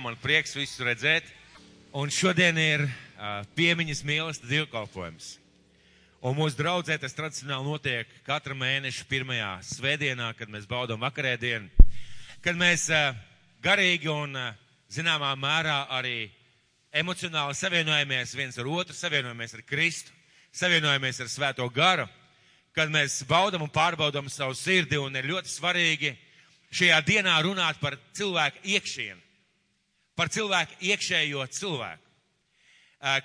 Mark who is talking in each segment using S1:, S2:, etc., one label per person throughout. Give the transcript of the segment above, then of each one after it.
S1: man prieks visus redzēt. Un šodien ir piemiņas mīlestība dievkalpojums. Un mūsu draudzē tas tradicionāli notiek katra mēneša pirmajā svētdienā, kad mēs baudām vakarēdienu, kad mēs garīgi un zināmā mērā arī emocionāli savienojamies viens ar otru, savienojamies ar Kristu, savienojamies ar Svēto garu, kad mēs baudam un pārbaudam savu sirdi, un ir ļoti svarīgi šajā dienā runāt par cilvēku iekšienu, par cilvēku iekšējo cilvēku.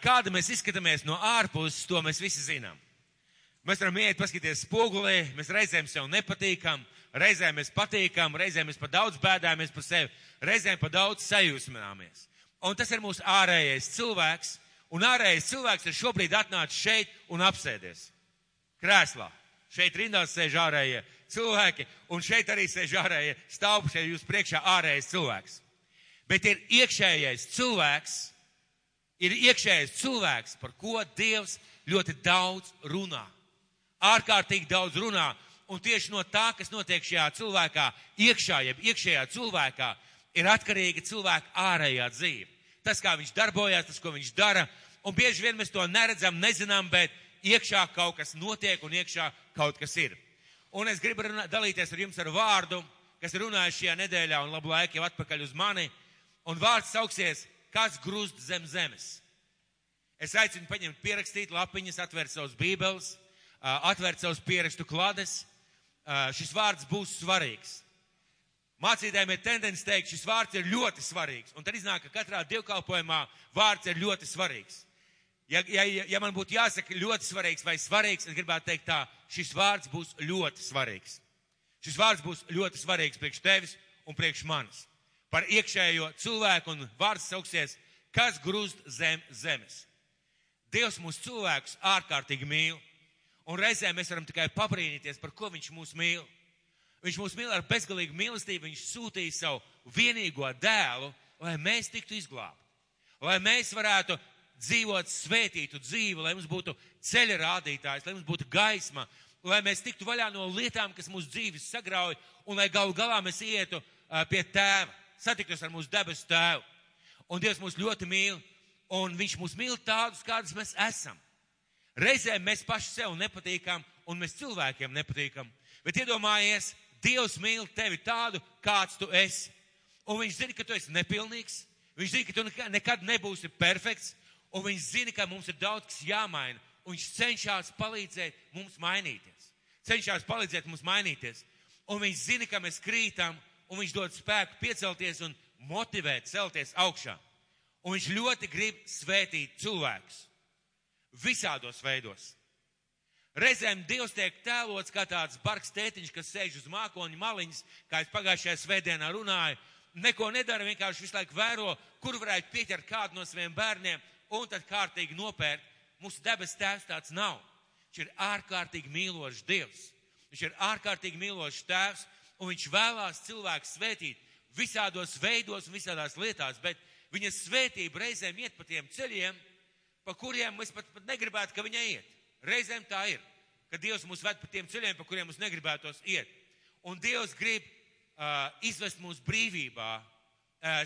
S1: Kāda mēs izskatāmies no ārpuses, to mēs visi zinām. Mēs varam iet paskatīties spogulī, mēs reizēm sev nepatīkam, reizēm mēs patīkam, reizēm mēs par daudz bēdāmies par sevi, reizēm par daudz sajūsmināmies. Un tas ir mūsu ārējais cilvēks, un ārējais cilvēks ir šobrīd atnācis šeit un apsēdies krēslā. Šeit rindās sēž ārējie cilvēki, un šeit arī sēž ārējie stāv šeit jūs priekšā ārējais cilvēks. Bet ir iekšējais cilvēks, par ko Dievs ļoti daudz runā. Ārkārtīgi daudz runā, un tieši no tā, kas notiek šajā cilvēkā iekšā, jeb iekšējā cilvēkā, ir atkarīga cilvēka ārējā dzīve. Tas, kā viņš darbojās, tas, ko viņš dara, un bieži vien mēs to neredzam, nezinām, bet iekšā kaut kas notiek un iekšā kaut kas ir. Un es gribu dalīties ar jums ar vārdu, kas ir runājis šajā nedēļā un labu laiku jau atpakaļ uz mani, un vārds sauksies, kas grūst zem zemes. Es aicinu paņemt pierakstīt lapiņas, atvērt savus bībeles, atvērt savus pierakstu klades. Šis vārds būs svarīgs. Mācītājiem ir tendence teikt, šis vārds ir ļoti svarīgs. Un tad iznāk, ka katrā dievkalpojumā vārds ir ļoti svarīgs. Ja man būtu jāsaka ļoti svarīgs vai svarīgs, es gribētu teikt tā, šis vārds būs ļoti svarīgs. Šis vārds būs ļoti svarīgs priekš tevis un priekš manis. Par iekšējo cilvēku, un vārds sauksies, kas grūst zem zemes. Dievs mūsu cilvēkus ārkārtīgi mīl. Un reizēm mēs varam tikai pabrīnīties, par ko viņš mūs mīl. Viņš mūs mīl ar bezgalīgu mīlestību, viņš sūtīja savu vienīgo dēlu, lai mēs tiktu izglābti. Lai mēs varētu dzīvot svētītu dzīvi, lai mums būtu ceļa rādītājs, lai mums būtu gaisma, lai mēs tiktu vaļā no lietām, kas mūsu dzīves sagrauj, un lai galu galā mēs ietu pie tēva, satiktos ar mūsu debesu tēvu. Un Dievs mūs ļoti mīl, un viņš mūs mīl tādus, kādus mēs esam. Reizēm mēs paši sev nepatīkam, un mēs cilvēkiem nepatīkam. Bet iedomājies, Dievs mīl tevi tādu, kāds tu esi. Un viņš zina, ka tu esi nepilnīgs. Viņš zina, ka tu nekad nebūsi perfekts. Un viņš zina, ka mums ir daudz kas jāmaina. Un viņš cenšas palīdzēt mums mainīties. Un viņš zina, ka mēs krītam, un viņš dod spēku piecelties un motivēt celties augšā. Un viņš ļoti grib svētīt cilvēkus. Visādos veidos. Reizēm Dievs tiek tēlots kā tāds bargs tētiņš, kas sēž uz mākoņu maliņas, kā es pagājušajā svētdienā runāju, neko nedara, vienkārši visu laiku vēro, kur varētu pieķert kādu no saviem bērniem un tad kārtīgi nopērt. Mūsu debes tēvs tāds nav. Viņš ir ārkārtīgi mīlošs Dievs. Viņš ir ārkārtīgi mīlošs tēvs, un viņš vēlās cilvēku svētīt visādos veidos un visādās lietās, bet viņa svētība reizēm iet pa tiem ceļiem, pa kuriem mēs pat negribētu, ka viņa iet. Reizēm tā ir, ka Dievs mūs ved pa tiem ceļiem, pa kuriem mums negribētos iet. Un Dievs grib izvest mūs brīvībā,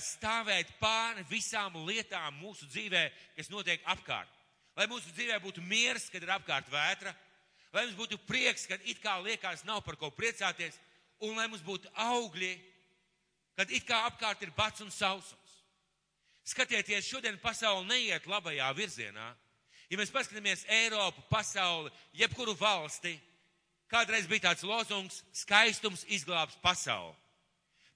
S1: stāvēt pāri visām lietām mūsu dzīvē, kas notiek apkārt. Lai mūsu dzīvē būtu miers, kad ir apkārt vētra, lai mums būtu prieks, kad it kā liekas nav par ko priecāties, un lai mums būtu augļi, kad it kā apkārt ir bats un sausums. Skatieties, šodien pasaule neiet labajā virzienā. Ja mēs paskatāmies Eiropu, pasauli, jebkuru valsti, kādreiz bija tāds lozungs, skaistums izglābs pasauli.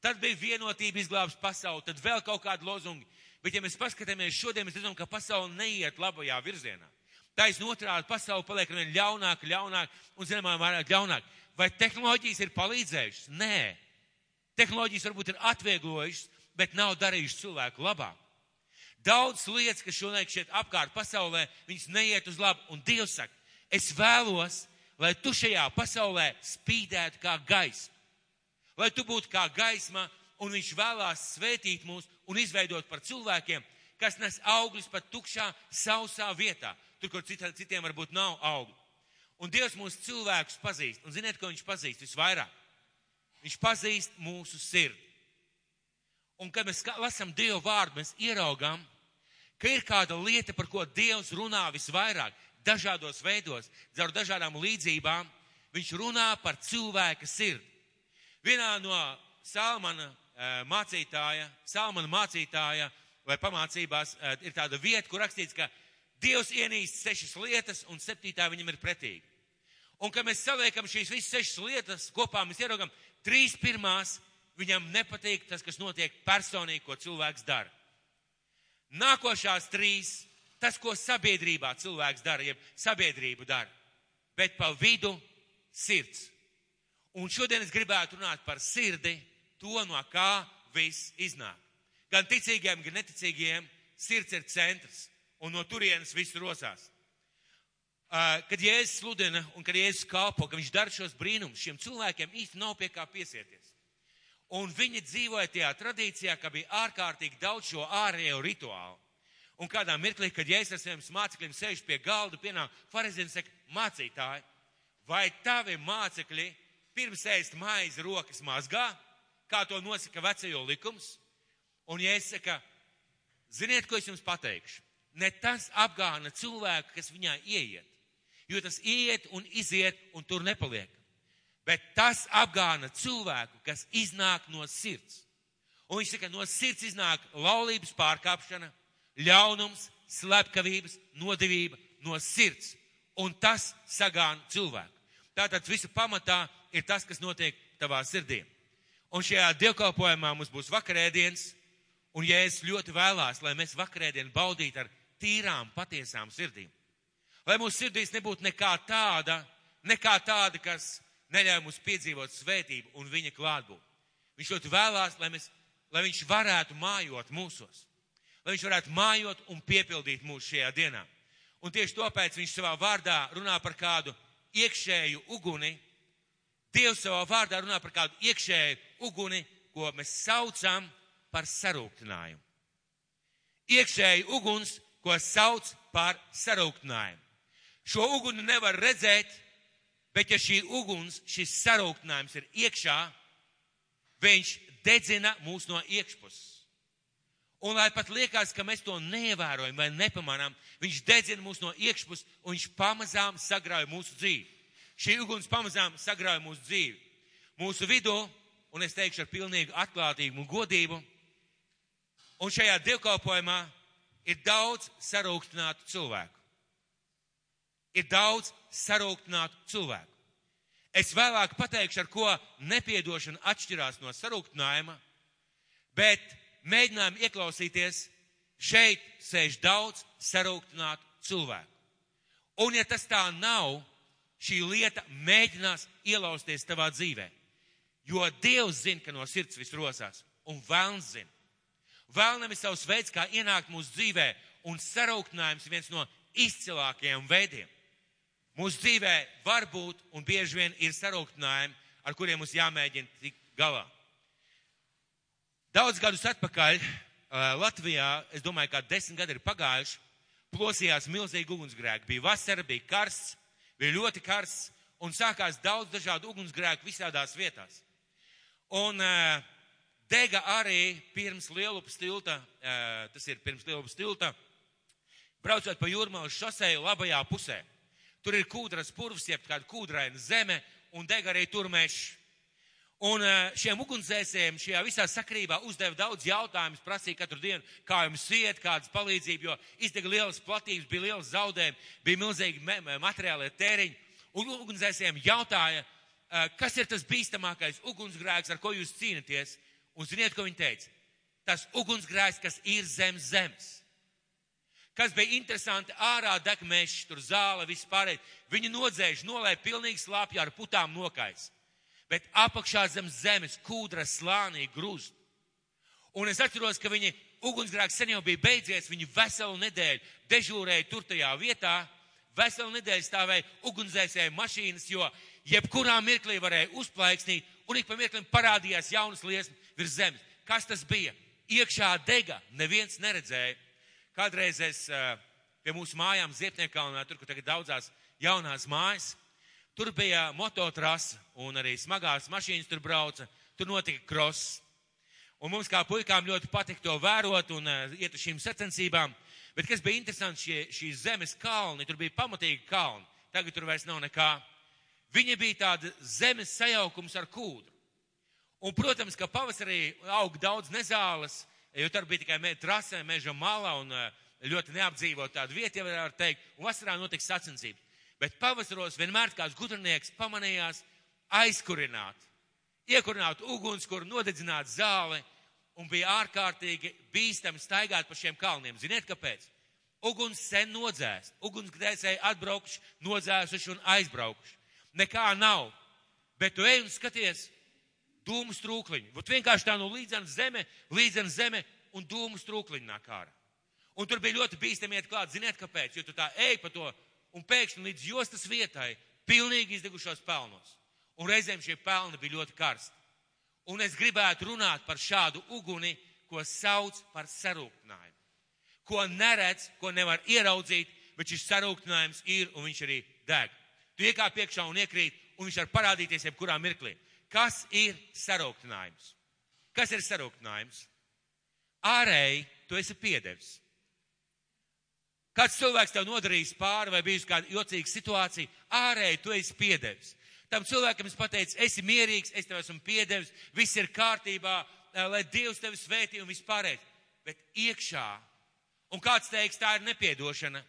S1: Tad bija vienotība izglābs pasauli, tad vēl kaut kādi lozungi. Bet ja mēs paskatāmies šodien, mēs redzam, ka pasaule neiet labajā virzienā. Taisn otrādi pasaule paliek vien ļaunāk un zināmā mērā ļaunāk. Vai tehnoloģijas ir palīdzējušas? Nē. Tehnoloģijas varbūt ir atvieglojušas, bet nav darījušas cilvēku labāk. Daudz lietas, kas šodien šeit apkārt pasaulē, viņas neiet uz labu. Un Dievs saka, es vēlos, lai tu šajā pasaulē spīdētu kā gaisma. Lai tu būtu kā gaisma, un viņš vēlās svētīt mūs un izveidot par cilvēkiem, kas nes augļus pat tukšā, sausā vietā. Tur, kur citiem varbūt nav augļu. Un Dievs mūsu cilvēkus pazīst. Un ziniet, ko viņš pazīst visvairāk? Viņš pazīst mūsu sirdi. Un, kad mēs lasām Dievu vārdu, mēs ieraugām, ka ir kāda lieta, par ko Dievs runā visvairāk, dažādos veidos, caur dažādām līdzībām. Viņš runā par cilvēka sirdi. Vienā no Salmana mācītāja vai pamācībās ir tāda vieta, kur rakstīts, ka Dievs ienīst 6 lietas un 7. viņam ir pretīga. Un, kad mēs saliekam šīs visas 6 lietas kopā, mēs ieraugam 3 pirmās, viņam nepatīk tas, kas notiek personīgi, ko cilvēks dara. Nākošās 3, tas, ko sabiedrībā cilvēks dara, jeb sabiedrība dara, bet pa vidu sirds. Un šodien es gribētu runāt par sirdi, to, no kā viss iznāk. Gan ticīgiem, gan neticīgiem sirds ir centrs, un no turienes viss rosās. Kad Jēzus sludina un kad Jēzus kalpo, ka viņš dara šos brīnumus, šiem cilvēkiem īsti nav pie kā piesieties. Un viņi dzīvoja tajā tradīcijā, ka bija ārkārtīgi daudz šo ārējo rituālu. Un kādā mirklī, kad Jēzus ar saviem mācekļiem sēž pie galda, pienāk farizēni un saka, mācītāji, vai tavi mācekļi pirms ēst maizi rokas mazgā, kā to nosaka vecajo likums? Un Jēzus saka, ziniet, ko es jums pateikšu? Ne tas apgāna cilvēku, kas viņā ieiet, jo tas iet un iziet un tur nepaliek. Bet tas apgāna cilvēku, kas iznāk no sirds. Un viņš saka, no sirds iznāk laulības pārkāpšana, ļaunums, slepkavības, nodevība no sirds. Un tas sagāna cilvēku. Tātad visu pamatā ir tas, kas notiek tavā sirdī. Un šajā dievkalpojumā mums būs vakarēdienas, un Jēzus ļoti vēlās, lai mēs vakarēdienu baudītu ar tīrām, patiesām sirdīm. Lai mūsu sirdīs nebūtu nekā tāda, kas neļauj mums piedzīvot svētību un viņa klātbūtni. Viņš ļoti vēlās, lai viņš varētu mājot mūsos. Lai viņš varētu mājot un piepildīt mūs šajā dienā. Un tieši tāpēc viņš savā vārdā runā par kādu iekšēju uguni. Dievs savā vārdā runā par kādu iekšēju uguni, ko mēs saucam par sarūktinājumu. Iekšēju uguns, ko sauc par sarūktinājumu. Šo uguni nevar redzēt, bet ja šī uguns, šis sarūktinājums ir iekšā, viņš dedzina mūs no iekšpuses. Un lai pat liekas, ka mēs to neievērojam vai nepamanām, viņš dedzina mūs no iekšpuses un viņš pamazām sagrauj mūsu dzīvi. Šī uguns pamazām sagrauj mūsu dzīvi. Mūsu vidū, un es teikšu ar pilnīgu atklātību un godību, un šajā dievkalpojumā ir daudz sarūktinātu cilvēku. Ir daudz sarūktinātu cilvēku. Es vēlāk pateikšu, ar ko nepiedošana atšķirās no sarūktinājuma, bet mēģinājām ieklausīties, šeit sēž daudz sarūktinātu cilvēku. Un ja tas tā nav, šī lieta mēģinās ielausties tavā dzīvē. Jo Dievs zina, ka no sirds viss rosās, un velns zina. Vēlnam ir savs veids, kā ienākt mūsu dzīvē, un sarūktinājums ir viens no izcilākajiem veidiem. Mūsu dzīvē var būt un bieži vien ir sarūktinājumi, ar kuriem mums jāmēģina tikt galā. Daudz gadus atpakaļ Latvijā, es domāju, kā 10 gadi ir pagājuši, plosījās milzīgi ugunsgrēki. Bija vasara, bija karsts, bija ļoti karsts un sākās daudz dažādu ugunsgrēku visādās vietās. Un dega arī pirms Lielupas tilta, braucot pa Jūrmalas šoseju labajā pusē. Tur ir kūdras purvs, jeb kāda kūdraina zeme, un deg arī tur mežs. Un šiem ugunsdzēsējiem šajā visā sakrībā uzdeva daudz jautājumus, prasīja katru dienu, kā jums iet, kādas palīdzību, jo izdega lielas platības, bija lielas zaudējumi, bija milzīgi materiālie tēriņi. Un ugunsdzēsējiem jautāja, kas ir tas bīstamākais ugunsgrēks, ar ko jūs cīnaties. Un ziniet, ko viņi teica? Tas ugunsgrēks, kas ir zem zemes. Kas bija interesanti, ārā deg mežs, tur zāle, viss pārējais. Viņi nodzēš, nolēja pilnīgi slāpjā ar putām nokais. Bet apakšā zem zemes kūdra slānī grūst. Un es atceros, ka viņi ugunsgrēks sen jau bija beidzies, viņi veselu nedēļu dežūrēja tur tajā vietā, veselu nedēļu stāvēja ugunsdzēsēju mašīnas, jo jebkurā mirklī varēja uzplaiksnīt, un ik pa mirklim parādījās jaunas liesmas virs zemes. Kas tas bija? Iekšā dega, neviens neredzēja. Kādreiz es pie mūsu mājām Ziepniekalnā, tur, kur tagad daudzās jaunās mājas, tur bija mototrasa un arī smagās mašīnas tur brauca, tur notika kross. Un mums kā puikām ļoti patika to vērot un iet uz šīm sacensībām. Bet kas bija interesanti, šīs zemes kalni, tur bija pamatīgi kalni. Tagad tur vairs nav nekā. Viņi bija tāda zemes sajaukums ar kūdru. Un, protams, ka pavasarī aug daudz nezāles, jo tur bija tikai trasē, meža malā un ļoti neapdzīvot tādu vietu, ja var teikt, un vasarā notiks sacensības. Bet pavasaros vienmēr kāds gudrinieks pamanījās aizkurināt, iekurināt ugunskura, nodedzināt zāli, un bija ārkārtīgi bīstami staigāt pa šiem kalniem. Ziniet, kāpēc? Uguns sen nodzēst, ugunsgrēcēji atbraukuši, nodzēsuši un aizbraukuši. Nekā nav, bet tu ej un skaties dūmu strūkliņu. Vot vienkārši tā no līdzen zeme un dūmu strūkliņu nāk ārā. Un tur bija ļoti bīstami iet klāt, ziniet, kāpēc? Jo tu tā ej pa to un pēkšņi līdz jostas vietai pilnīgi izdegušos pelnos. Un reizēm šie pelni bija ļoti karsti. Un es gribētu runāt par šādu uguni, ko sauc par sarūktinājumu. Ko neredz, ko nevar ieraudzīt, bet šis sarūktinājums ir un viņš arī deg. Tu iekāp iekšā un iekrīt, un viņš var parādīties jebkurā mirklī. Kas ir sarūktinājums? Kas ir sarūktinājums? Ārēji tu esi piedevis. Kāds cilvēks tev nodarījis pāri vai bijusi kāda jocīga situācija, ārēji tu esi piedevis. Tam cilvēkam es pateicu, esi mierīgs, es tev esmu piedevis, viss ir kārtībā, lai Dievs tevi svētī un vispārējais. Bet iekšā, un kāds teiks, tā ir nepiedošana,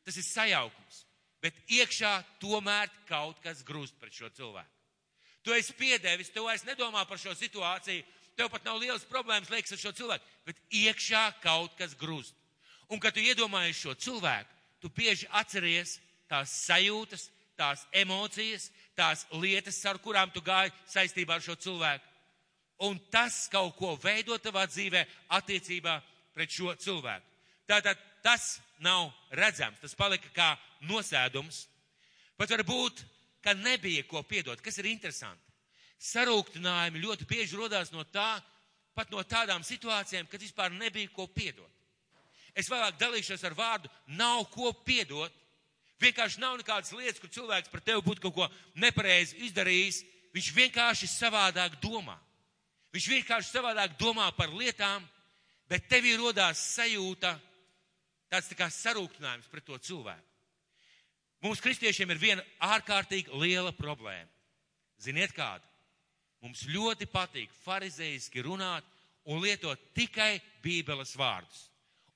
S1: tas ir sajaukums. Bet iekšā tomēr kaut kas grūst pret šo cilvēku. Tu esi piedevis, tu vairs nedomā par šo situāciju, tev pat nav lielas problēmas liekas ar šo cilvēku, bet iekšā kaut kas grūst. Un, kad tu iedomājies šo cilvēku, tu bieži atceries tās sajūtas, tās emocijas, tās lietas, ar kurām tu gāji saistībā ar šo cilvēku. Un tas kaut ko veido tavā dzīvē attiecībā pret šo cilvēku. Tātad tas nav redzams, tas palika kā nosēdums. Pat varbūt, ka nebija ko piedot. Kas ir interesanti? Sarūktinājumi ļoti bieži rodās no tā, pat no tādām situācijām, kad vispār nebija ko piedot. Es vēlāk dalīšos ar vārdu, nav ko piedot. Vienkārši nav nekādas lietas, kur cilvēks par tevi būtu kaut ko nepareizi izdarījis. Viņš vienkārši savādāk domā. Viņš vienkārši savādāk domā par lietām, bet tevī rodās sajūta, tāds tā kā sarūktinājums pret to cilvēku. Mums kristiešiem ir viena ārkārtīgi liela problēma. Ziniet kāda? Mums ļoti patīk farizeiski runāt un lietot tikai Bībeles vārdus.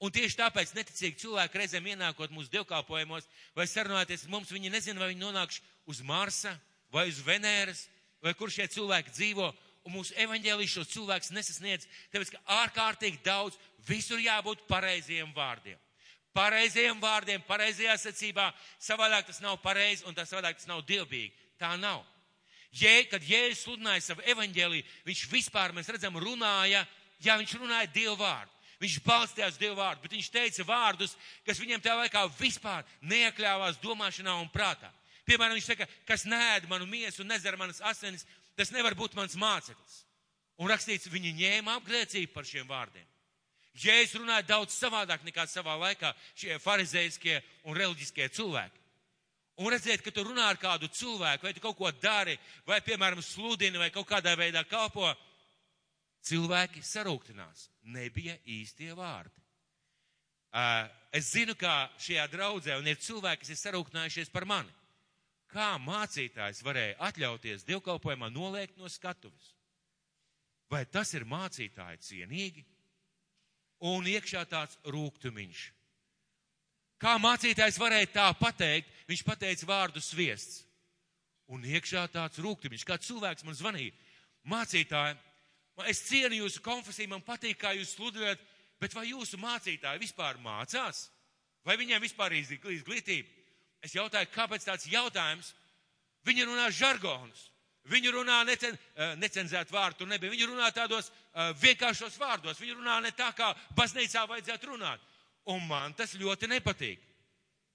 S1: Un tieši tāpēc neticīgi cilvēki reizēm ienākot mūsu dievkalpojumos vai sarunāties ar mums, viņi nezina, vai viņi nonākš uz Marsa vai uz Venēras, vai kur šie cilvēki dzīvo. Un mūsu evaņģēlijas šos cilvēkus nesasniedz, tāpēc, ka ārkārtīgi daudz visur jābūt pareizajiem vārdiem. Pareizajiem vārdiem, pareizajā secībā, savādāk tas nav pareizi un savādāk tas nav dievbīgi. Tā nav. Kad Jēzus sludināja savu evaņģēliju, viņš vispār, mēs redzam, viņš runāja Dievu vārdu. Viņš balstījās Dievu vārdu, bet viņš teica vārdus, kas viņam tajā laikā vispār neiekļāvās domāšanā un prātā. Piemēram, viņš saka, kas neēd manu miesu un nedzer manas asinis, tas nevar būt mans māceklis. Un rakstīts, viņi ņēma apgrēcību par šiem vārdiem. Jēzus runāja daudz savādāk nekā savā laikā šie farizejiskie un reliģiskie cilvēki. Un redziet, ka tu runā ar kādu cilvēku, vai tu kaut ko dari, vai, piemēram, sludini, vai kaut kādā veidā kalpo, cilvēki sarūktinās. Nebija īstie vārdi. Es zinu, kā šajā draudzē, un ir cilvēki, kas ir sarūktinājušies par mani. Kā mācītājs varēja atļauties dievkalpojumā noliekt no skatuves? Vai tas ir mācītāji cienīgi? Un iekšā tāds rūgtumiņš. Kā mācītājs varēja tā pateikt? Viņš pateica vārdu sviests. Un iekšā tāds rūgtumiņš. Kā cilvēks man zvanīja. Mācītāji, es cienu jūsu konfesiju, man patīk, kā jūs sludināt, bet vai jūsu mācītāji vispār mācās? Vai viņiem vispār ir izglītība? Es jautāju, kāpēc tāds jautājums? Viņi runā žargonus. Viņi runā necenzēt vārdu, tur nebija. Viņi runā tādos vienkāršos vārdos. Viņi runā ne tā, kā baznīcā vajadzētu runāt. Un man tas ļoti nepatīk.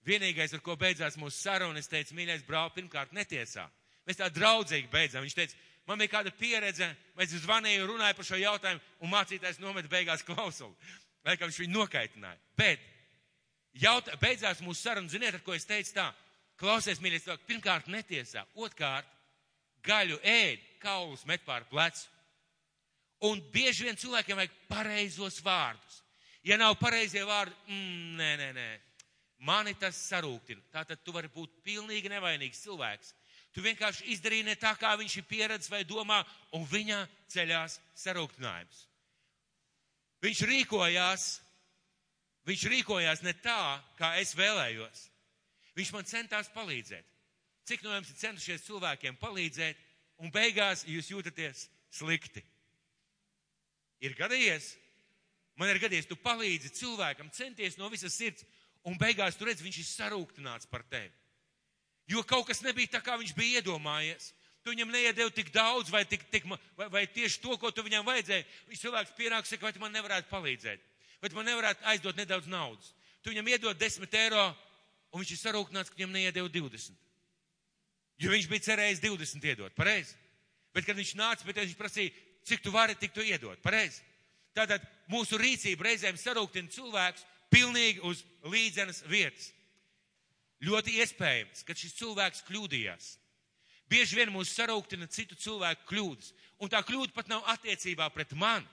S1: Vienīgais, ar ko beidzās mūsu saruna, es teicu, mīļais brāl, pirmkārt netiesā. Mēs tā draudzīgi beidzām. Viņš teica, man bija kāda pieredze, mēs zvanīju, runāju par šo jautājumu, un mācītājs nomet beigās klausuli. Laikam viņš viņu nokaitināja. Bet beidzās mūsu saruna, ziniet, ar ko es teicu tā, klausies, mīļais, pirmkārt netiesā, otrkārt, gaļu ēd, kaulus met pār plecu. Un bieži vien cilvēkiem vajag pareizos vārdus. Ja nav pareizie vārdi, nē. Mani tas sarūktina. Tātad tu vari būt pilnīgi nevainīgs cilvēks. Tu vienkārši izdarīji ne tā, kā viņš ir pieredzis vai domā, un viņā ceļās sarūktinājums. Viņš rīkojās ne tā, kā es vēlējos. Viņš man centās palīdzēt. Cik no jums ir centušies cilvēkiem palīdzēt, un beigās jūs jūtaties slikti? Ir gadījies? Man ir gadījies, tu palīdzi cilvēkam, centies no visas sirds, un beigās tu redz, viņš ir sarūktināts par tevi. Jo kaut kas nebija tā, kā viņš bija iedomājies. Tu viņam neiedevi tik daudz, vai tieši to, ko tu viņam vajadzēja. Viņš cilvēks pienāk, saka, vai tu man nevarētu palīdzēt? Vai tu man nevarētu aizdot nedaudz naudas? Tu viņam iedod 10 eiro, un viņš ir sarūktināts, ka viņam neiedevi 20. Jo viņš bija cerējis 20 iedot, pareizi? Bet, kad viņš nāca, viņš prasīja, cik tu vari, tik tu iedot, pareizi? Tātad mūsu rīcība reizēm sarūktina cilvēkus pilnīgi uz līdzenas vietas. Ļoti iespējams, ka šis cilvēks kļūdījās. Bieži vien mūs sarūktina citu cilvēku kļūdas. Un tā kļūda pat nav attiecībā pret mani.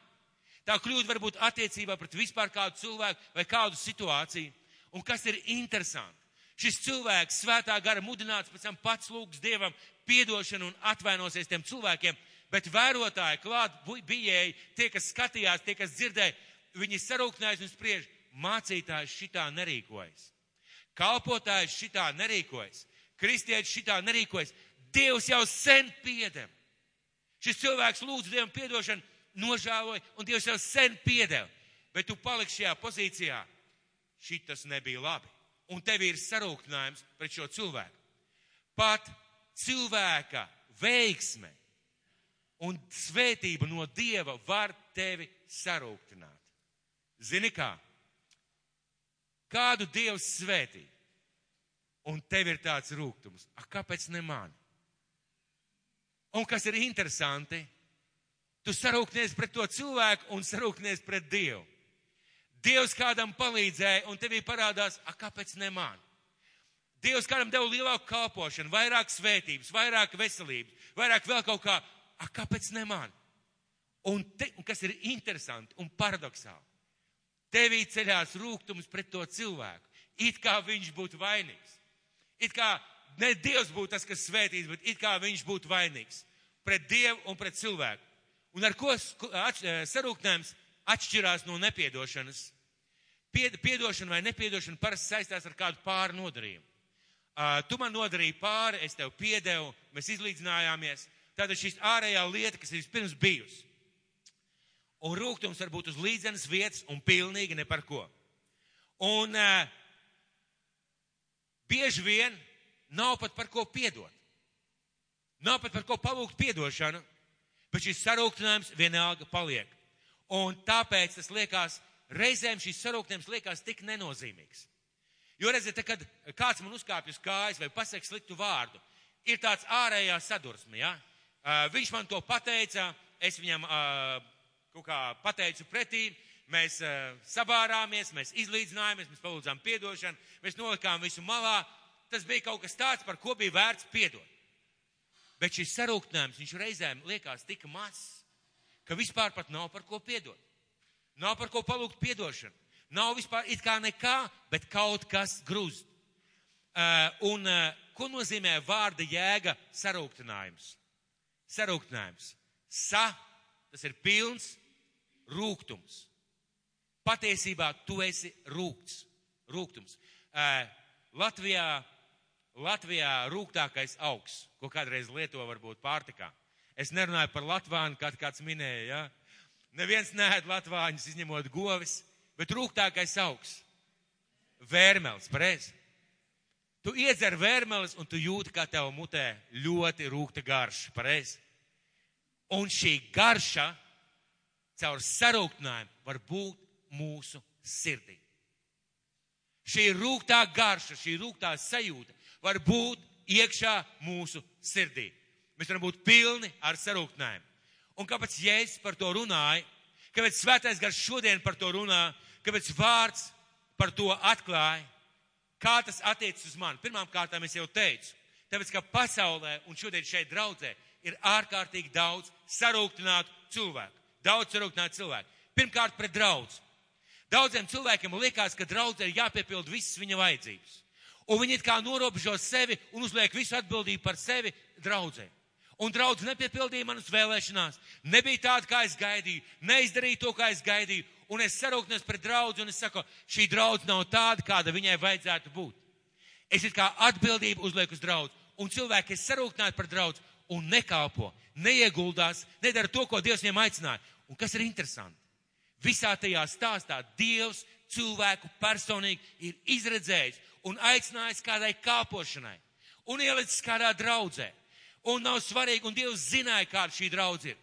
S1: Tā kļūda var būt attiecībā pret vispār kādu cilvēku vai kādu situāciju. Un kas ir interesanti? Šis cilvēks svētā gara mudināts pēc tam pats lūgs Dievam piedošanu un atvainosies tiem cilvēkiem. Bet vērotāji, klāt bijēji, tie, kas skatījās, tie, kas dzirdēja, viņi sarūktinājās un spriež, mācītājs šitā nerīkojas. Kalpotājs šitā nerīkojas. Kristietis šitā nerīkojas. Dievs jau sen piedeva. Šis cilvēks lūdz Dievam piedošanu, nožēloja, un Dievs jau sen piedeva. Bet tu paliksi šajā pozīcijā. Šitas nebija labi. Un tev ir sarūktinājums pret šo cilvēku. Pat cilvēka veiksme un svētība no Dieva var tevi sarūktināt. Zini kā? Kādu Dievs svētī? Un tev ir tāds rūgtums. Kāpēc ne mani? Un kas ir interesanti, tu sarūktinies pret to cilvēku un sarūktinies pret Dievu. Dievs kādam palīdzēja un tevī parādās, kāpēc ne mani? Dievs kādam deva lielāku kalpošanu, vairāk svētības, vairāk veselības, vairāk vēl kaut kā, kāpēc ne mani? Un kas ir interesanti un paradoxāli, tevī ceļās rūgtums pret to cilvēku, it kā viņš būtu vainīgs. It kā ne Dievs būtu tas, kas svētīts, bet it kā viņš būtu vainīgs pret Dievu un pret cilvēku. Un ar ko sarūktinājums atšķirās no nepiedošanas? Piedošana vai nepiedošana parasti saistās ar kādu pāri nodarījumu. Tu man nodarīji pāri, es tev piedevu, mēs izlīdzinājāmies. Tātad šīs ārējā lieta, kas ir vispirms bijusi. Un rūgtums var būt uz līdzenas vietas un pilnīgi ne par ko. Un bieži vien nav pat par ko piedot. Nav pat par ko palūgt piedošanu, bet šis sarūktinājums vienalga paliek. Un tāpēc tas liekas, reizēm šis sarūktinājums liekas tik nenozīmīgs. Jo redziet, kad kāds man uzkāpj uz kājas vai pasaka sliktu vārdu, ir tāds ārējā sadursme, ja? Viņš man to pateica, es viņam kaut kā pateicu pretī, mēs sabārāmies, mēs izlīdzinājāmies, mēs palūdzām piedošanu, mēs nolikām visu malā. Tas bija kaut kas tāds, par ko bija vērts piedot. Bet šis sarūktinājums, viņš reizēm liekas tik mazs, ka vispār pat nav par ko piedot. Nav par ko palūgt piedošanu. Nav vispār it kā nekā, bet kaut kas grūst. Ko nozīmē vārda jēga sarūktinājums? Sarūktinājums. Tas ir pilns rūgtums. Patiesībā tu esi rūgtums. Latvijā rūgtākais augs, ko kādreiz lieto varbūt pārtikā. Es nerunāju par latvānu, kā kāds minēja, ja? Neviens neēd latvāņus, izņemot govis, bet rūgtākais augs. Vērmelis, pareizi. Tu iedzer vērmelis un tu jūti, kā tev mutē ļoti rūgta garša, pareizi. Un šī garša caur sarūktinājumu var būt mūsu sirdī. Šī rūgtā garša, šī rūgtā sajūta var būt iekšā mūsu sirdī. Mēs varam būt pilni ar sarūktinājumu. Un kāpēc Jēzus par to runāja, kāpēc Svētais Gars šodien par to runā, kāpēc vārds par to atklāja, kā tas attiecas uz mani? Pirmām kārtām es jau teicu, tāpēc, ka pasaulē un šodien šeit draudzē ir ārkārtīgi daudz sarūktinātu cilvēku. daudz sarūktināti cilvēki. Pirmkārt, pret draudzi. Daudziem cilvēkiem liekas, ka draudzē ir jāpiepild visas viņa vajadzības. Un viņi it kā norobežo sevi un uzliek visu atbildību par sevi draudzē. Un draudz nepiepildīja manas vēlēšanās. Nebija tāda, kā es gaidīju. Neizdarīju to, kā es gaidīju. Un es sarūknos pret draudzi un es saku, šī draudz nav tāda, kāda viņai vajadzētu būt. Es it kā atbildību uzlieku uz draudzi. Un cilvēki ir sarūknāti par draudzi un nekalpo, neieguldās, nedara to, ko Dievs viņiem aicināja. Un kas ir interesanti? Visā tajā stāstā Dievs cilvēku personīgi ir izredzējis un aicinājis kādai kalpošanai. Un ielicis kādā draudzē. Un nav svarīgi, un Dievs zināja, kāda šī draudz ir.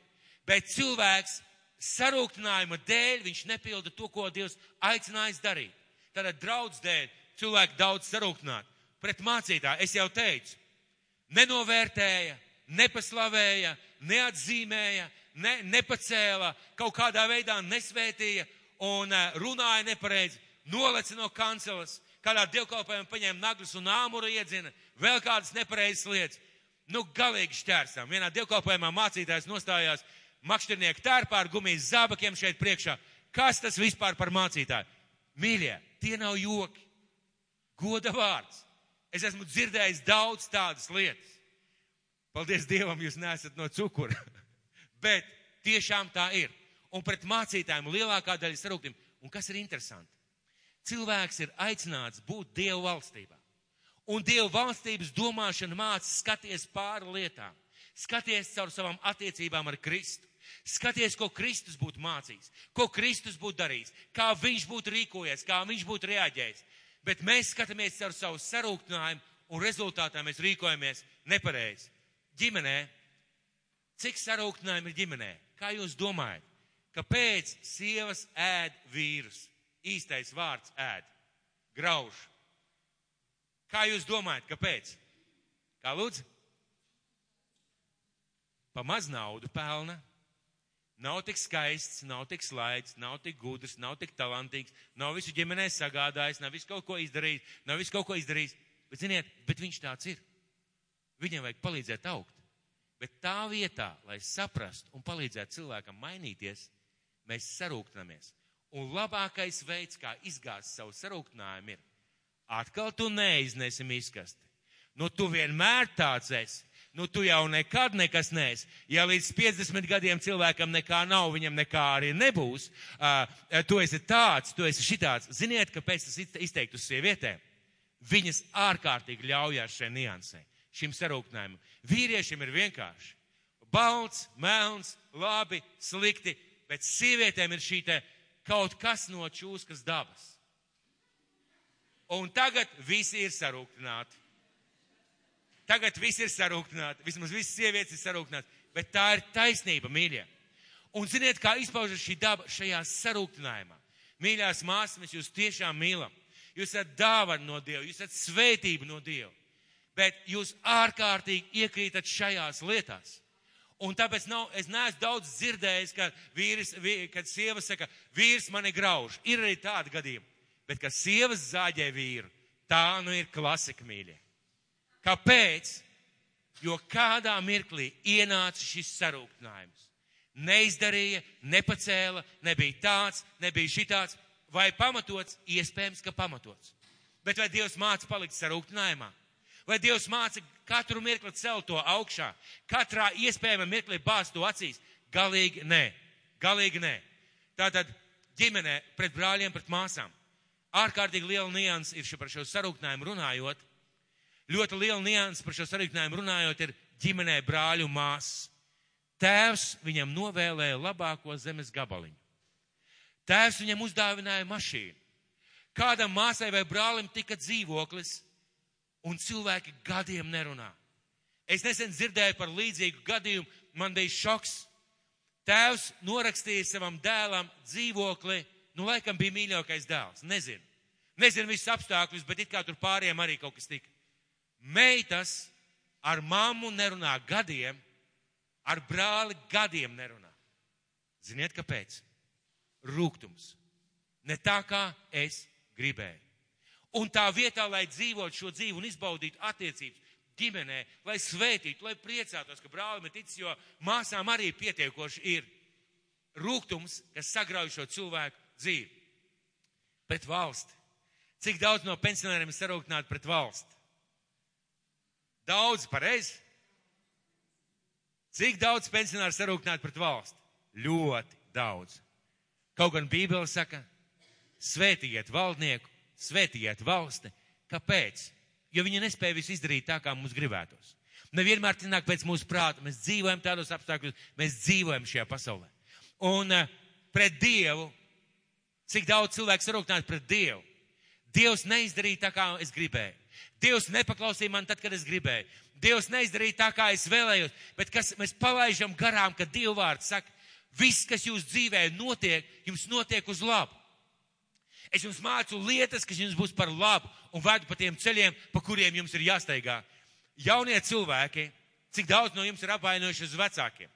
S1: Bet cilvēks sarūktinājuma dēļ, viņš nepilda to, ko Dievs aicinājis darīt. Tātad draudz dēļ cilvēki daudz sarūktināti. Pret mācītāju, es jau teicu, nenovērtēja, nepaslavēja, neatzīmēja, nepacēla, kaut kādā veidā nesvētīja un runāja nepareizi, noleca no kanceles, kādā dievkalpojumā paņēma naglas un āmuru iedzina, vēl kādas nepareizas lietas. Galīgi šķērsām. Vienā dievkalpojumā mācītājs nostājās makšķernieku tērpā ar gumijas zābakiem šeit priekšā. Kas tas vispār par mācītāju? Mīļie, tie nav joki. Goda vārds. Es esmu dzirdējis daudz tādas lietas. Paldies Dievam, jūs neesat no cukura. Bet tiešām tā ir. Un pret mācītājiem lielākā daļa sarūktīm. Un kas ir interesanti? Cilvēks ir aicināts būt Dieva valstībā. Un Dieva valstības domāšana māca skaties pāri lietām. Skaties caur savām attiecībām ar Kristu. Skaties, ko Kristus būtu mācījis, ko Kristus būtu darījis, kā viņš būtu rīkojies, kā viņš būtu reaģējis. Bet mēs skatāmies caur savu sarūktinājumu un rezultātā mēs rīkojamies nepareizi. Ģimenē, cik sarūktinājumu ir ģimenē? Kā jūs domājat? Kāpēc sievas ēd vīrus? Īstais vārds ēd. Grauž. Kā jūs domājat, kāpēc? Kā lūdzu? Pa maz naudu pelna. Nav tik skaists, nav tik slaids, nav tik gudrs, nav tik talantīgs, nav visu ģimenē sagādājis, nav visu kaut ko izdarījis, Bet, ziniet, bet viņš tāds ir. Viņam vajag palīdzēt augt. Bet tā vietā, lai saprastu un palīdzētu cilvēkam mainīties, mēs sarūktinamies. Un labākais veids, kā izgāzt savu sarūktinājumu ir, atkal tu neiznesi miskasti. Tu vienmēr tāds esi. Tu jau nekad nekas neesi. Ja līdz 50 gadiem cilvēkam nekā nav, viņam nekā arī nebūs. Tu esi tāds, tu esi šitāds. Ziniet, kāpēc tas izteikt uz sievietēm? Viņas ārkārtīgi ļaujās šai niansē, šim sarūktinājumam. Vīriešiem ir vienkārši. Balts, melns, labi, slikti, bet sievietēm ir šī te kaut kas no čūskas dabas. Un tagad visi ir sarūktināti. Vismaz visas sievietes ir sarūktināti. Bet tā ir taisnība, mīļie. Un ziniet, kā izpaužas šī daba šajā sarūktinājumā. Mīļās māsas, mēs jūs tiešām mīlam. Jūs esat dāvana no Dieva, jūs esat svētība no Dieva. Bet jūs ārkārtīgi iekrītat šajās lietās. Un tāpēc es neesmu daudz dzirdējis, kad sieva saka, vīrs mani grauž. Ir arī tādi gadījumi. Bet, kad sievas zāģē vīru, tā ir klasika, mīļie. Kāpēc? Jo kādā mirklī ienāca šis sarūktinājums. Neizdarīja, nepacēla, nebija tāds, nebija šitāds, vai pamatots, iespējams, ka pamatots. Bet vai Dievs māca palikt sarūktinājumā? Vai Dievs māca katru mirkli celt to augšā? Katrā iespējamā mirklī bāzt to acīs? Galīgi nē. Tātad ģimenē pret brāļiem, pret māsām. Ārkārtīgi liela nianses ir par šo sarūktinājumu runājot. Ļoti liela nianses par šo sarūktinājumu runājot ir ģimenē brāļu māsas. Tēvs viņam novēlēja labāko zemes gabaliņu. Tēvs viņam uzdāvināja mašīnu. Kādam māsai vai brālim tika dzīvoklis, un cilvēki gadiem nerunā. Es nesen dzirdēju par līdzīgu gadījumu, man bija šoks. Tēvs norakstīja savam dēlam dzīvokli, laikam bija mīļākais dēls, nezinu visus apstākļus, bet it kā tur pāriem arī kaut kas tika. Meitas ar mammu nerunā gadiem, ar brāli gadiem nerunā. Ziniet, kāpēc? Rūgtums. Ne tā, kā es gribēju. Un tā vietā, lai dzīvotu šo dzīvi un izbaudītu attiecības ģimenē, lai svētītu, lai priecātos, ka brālim ir ticis, jo māsām arī pietiekoši ir. rūgtums, kas sagrauj šo cilvēku dzīvi. Pret valsti. Cik daudz no pensionāriem ir sarūktināti pret valsti? Daudz, pareizi? Cik daudz pensionāri sarūktināti pret valsti? Ļoti daudz. Kaut gan Bībele saka, svētīgiet valdnieku, svētīgiet valsti. Kāpēc? Jo viņi nespēja visu izdarīt tā, kā mums gribētos. Nevienmēr tināk pēc mūsu prāta. Mēs dzīvojam tādos apstākļos, mēs dzīvojam šajā pasaulē. Un pret Dievu, cik daudz cilvēku sarūktināti pret Dievu? Dievs neizdarīja tā, kā es gribēju. Dievs nepaklausīja man tad, kad es gribēju. Dievs neizdarīja tā, kā es vēlējos. Bet kas mēs palaižam garām, kad Dieva vārds saka, viss, kas jūs dzīvē notiek, jums notiek uz labu. Es jums mācu lietas, kas jums būs par labu un vedu pa tiem ceļiem, pa kuriem jums ir jāsteigā. Jaunie cilvēki, cik daudz no jums ir apvainojuši uz vecākiem?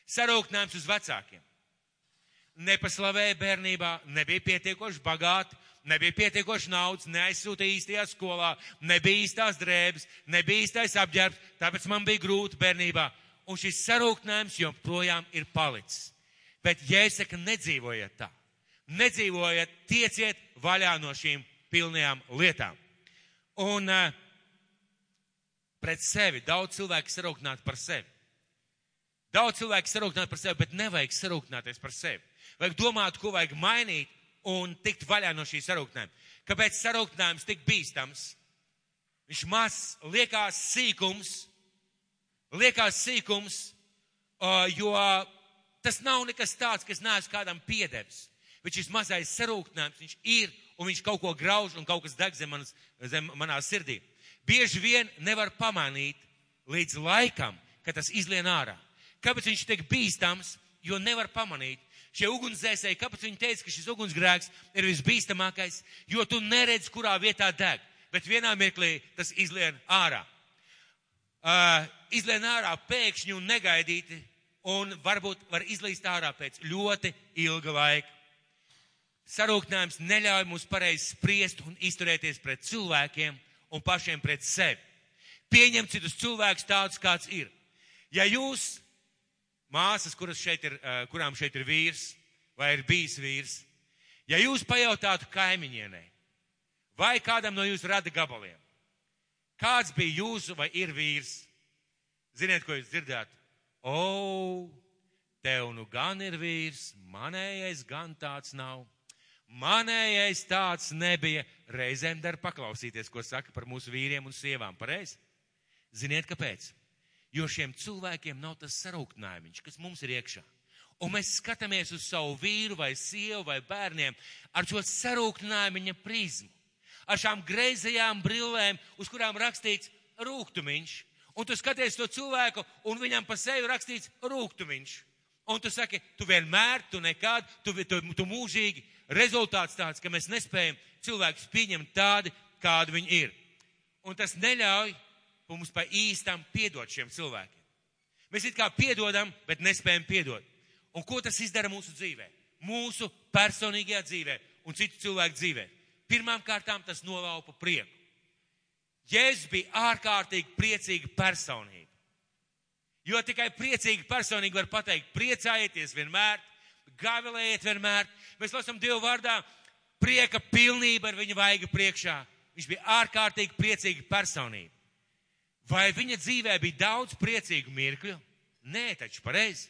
S1: Sarūktinājums uz vecākiem. Nepaslavēja bērnībā, nebija pietiekoši bagāti, nebija pietiekoši naudas, neaizsūtīja īstajā skolā, nebija īstās drēbes, nebija īstais apģērbs, tāpēc man bija grūti bērnībā. Un šis sarūktinājums joprojām ir palicis. Bet Jēzus saka, nedzīvojiet tā. Nedzīvojiet, tieciet vaļā no šīm pilnajām lietām. Un pret sevi daudz cilvēku sarūktināti par sevi. Daudz cilvēku sarūktināti par sevi, bet nevajag sarūktināties par sevi. Vajag domāt, ko vajag mainīt un tikt vaļā no šī sarūktinājuma. Kāpēc sarūktinājums tik bīstams? Viņš mazs, liekas sīkums, jo tas nav nekas tāds, kas neesmu kādam piedevis. Bet šis mazais sarūktinājums, viņš ir un viņš kaut ko grauž un kaut kas deg zem manā sirdī. Bieži vien nevar pamanīt līdz laikam, kad tas izlien ārā. Kāpēc viņš tiek bīstams? Jo nevar pamanīt. Šie ugunsdzēsēji, kāpēc viņi teica, ka šis ugunsgrēks ir visbīstamākais? Jo tu neredzi, kurā vietā deg, bet vienā mirklī tas izlien ārā. Izlien ārā pēkšņi un negaidīti, un varbūt var izlīst ārā pēc ļoti ilga laika. Sarūktinājums neļauj mums pareizi spriest un izturēties pret cilvēkiem un pašiem pret sevi. Pieņemt citus cilvēkus tādus, kāds ir. Ja jūs, māsas, kurām šeit ir vīrs vai ir bijis vīrs, ja jūs pajautātu kaimiņienei vai kādam no jūsu rada gabaliem, kāds bija jūsu vai ir vīrs, ziniet, ko jūs dzirdētu? O, tev nu gan ir vīrs, manējais gan tāds nav. Manējais tāds nebija. Reizēm dar paklausīties, ko saka par mūsu vīriem un sievām. Pareizi? Ziniet, kāpēc? Jo šiem cilvēkiem nav tas sarūktinājumiņš, kas mums ir iekšā. Un mēs skatāmies uz savu vīru vai sievu vai bērniem ar šo sarūktinājumiņa prizmu. Ar šām greizajām brillēm, uz kurām rakstīts rūgtumiņš. Un tu skaties to cilvēku un viņam pa sevi rakstīts rūgtumiņš. Un tu saki, tu vienmēr, tu nekad, tu mūžīgi. Rezultāts tāds, ka mēs nespējam cilvēkus pieņemt tādi, kādi viņi ir. Un tas neļauj mums pa īstam piedot šiem cilvēkiem. Mēs it kā piedodam, bet nespējam piedot. Un ko tas izdara mūsu dzīvē? Mūsu personīgajā dzīvē un citu cilvēku dzīvē. Pirmām kārtām tas nolaupa prieku. Jēzus bija ārkārtīgi priecīga personība. Jo tikai priecīga personība var pateikt, priecājieties vienmēr, gavilējiet vienmēr. Mēs lasām Dievu vārdā, prieka pilnība ar viņa vaiga priekšā. Viņš bija ārkārtīgi priecīga personība. Vai viņa dzīvē bija daudz priecīgu mirkļu? Nē, taču pareizi.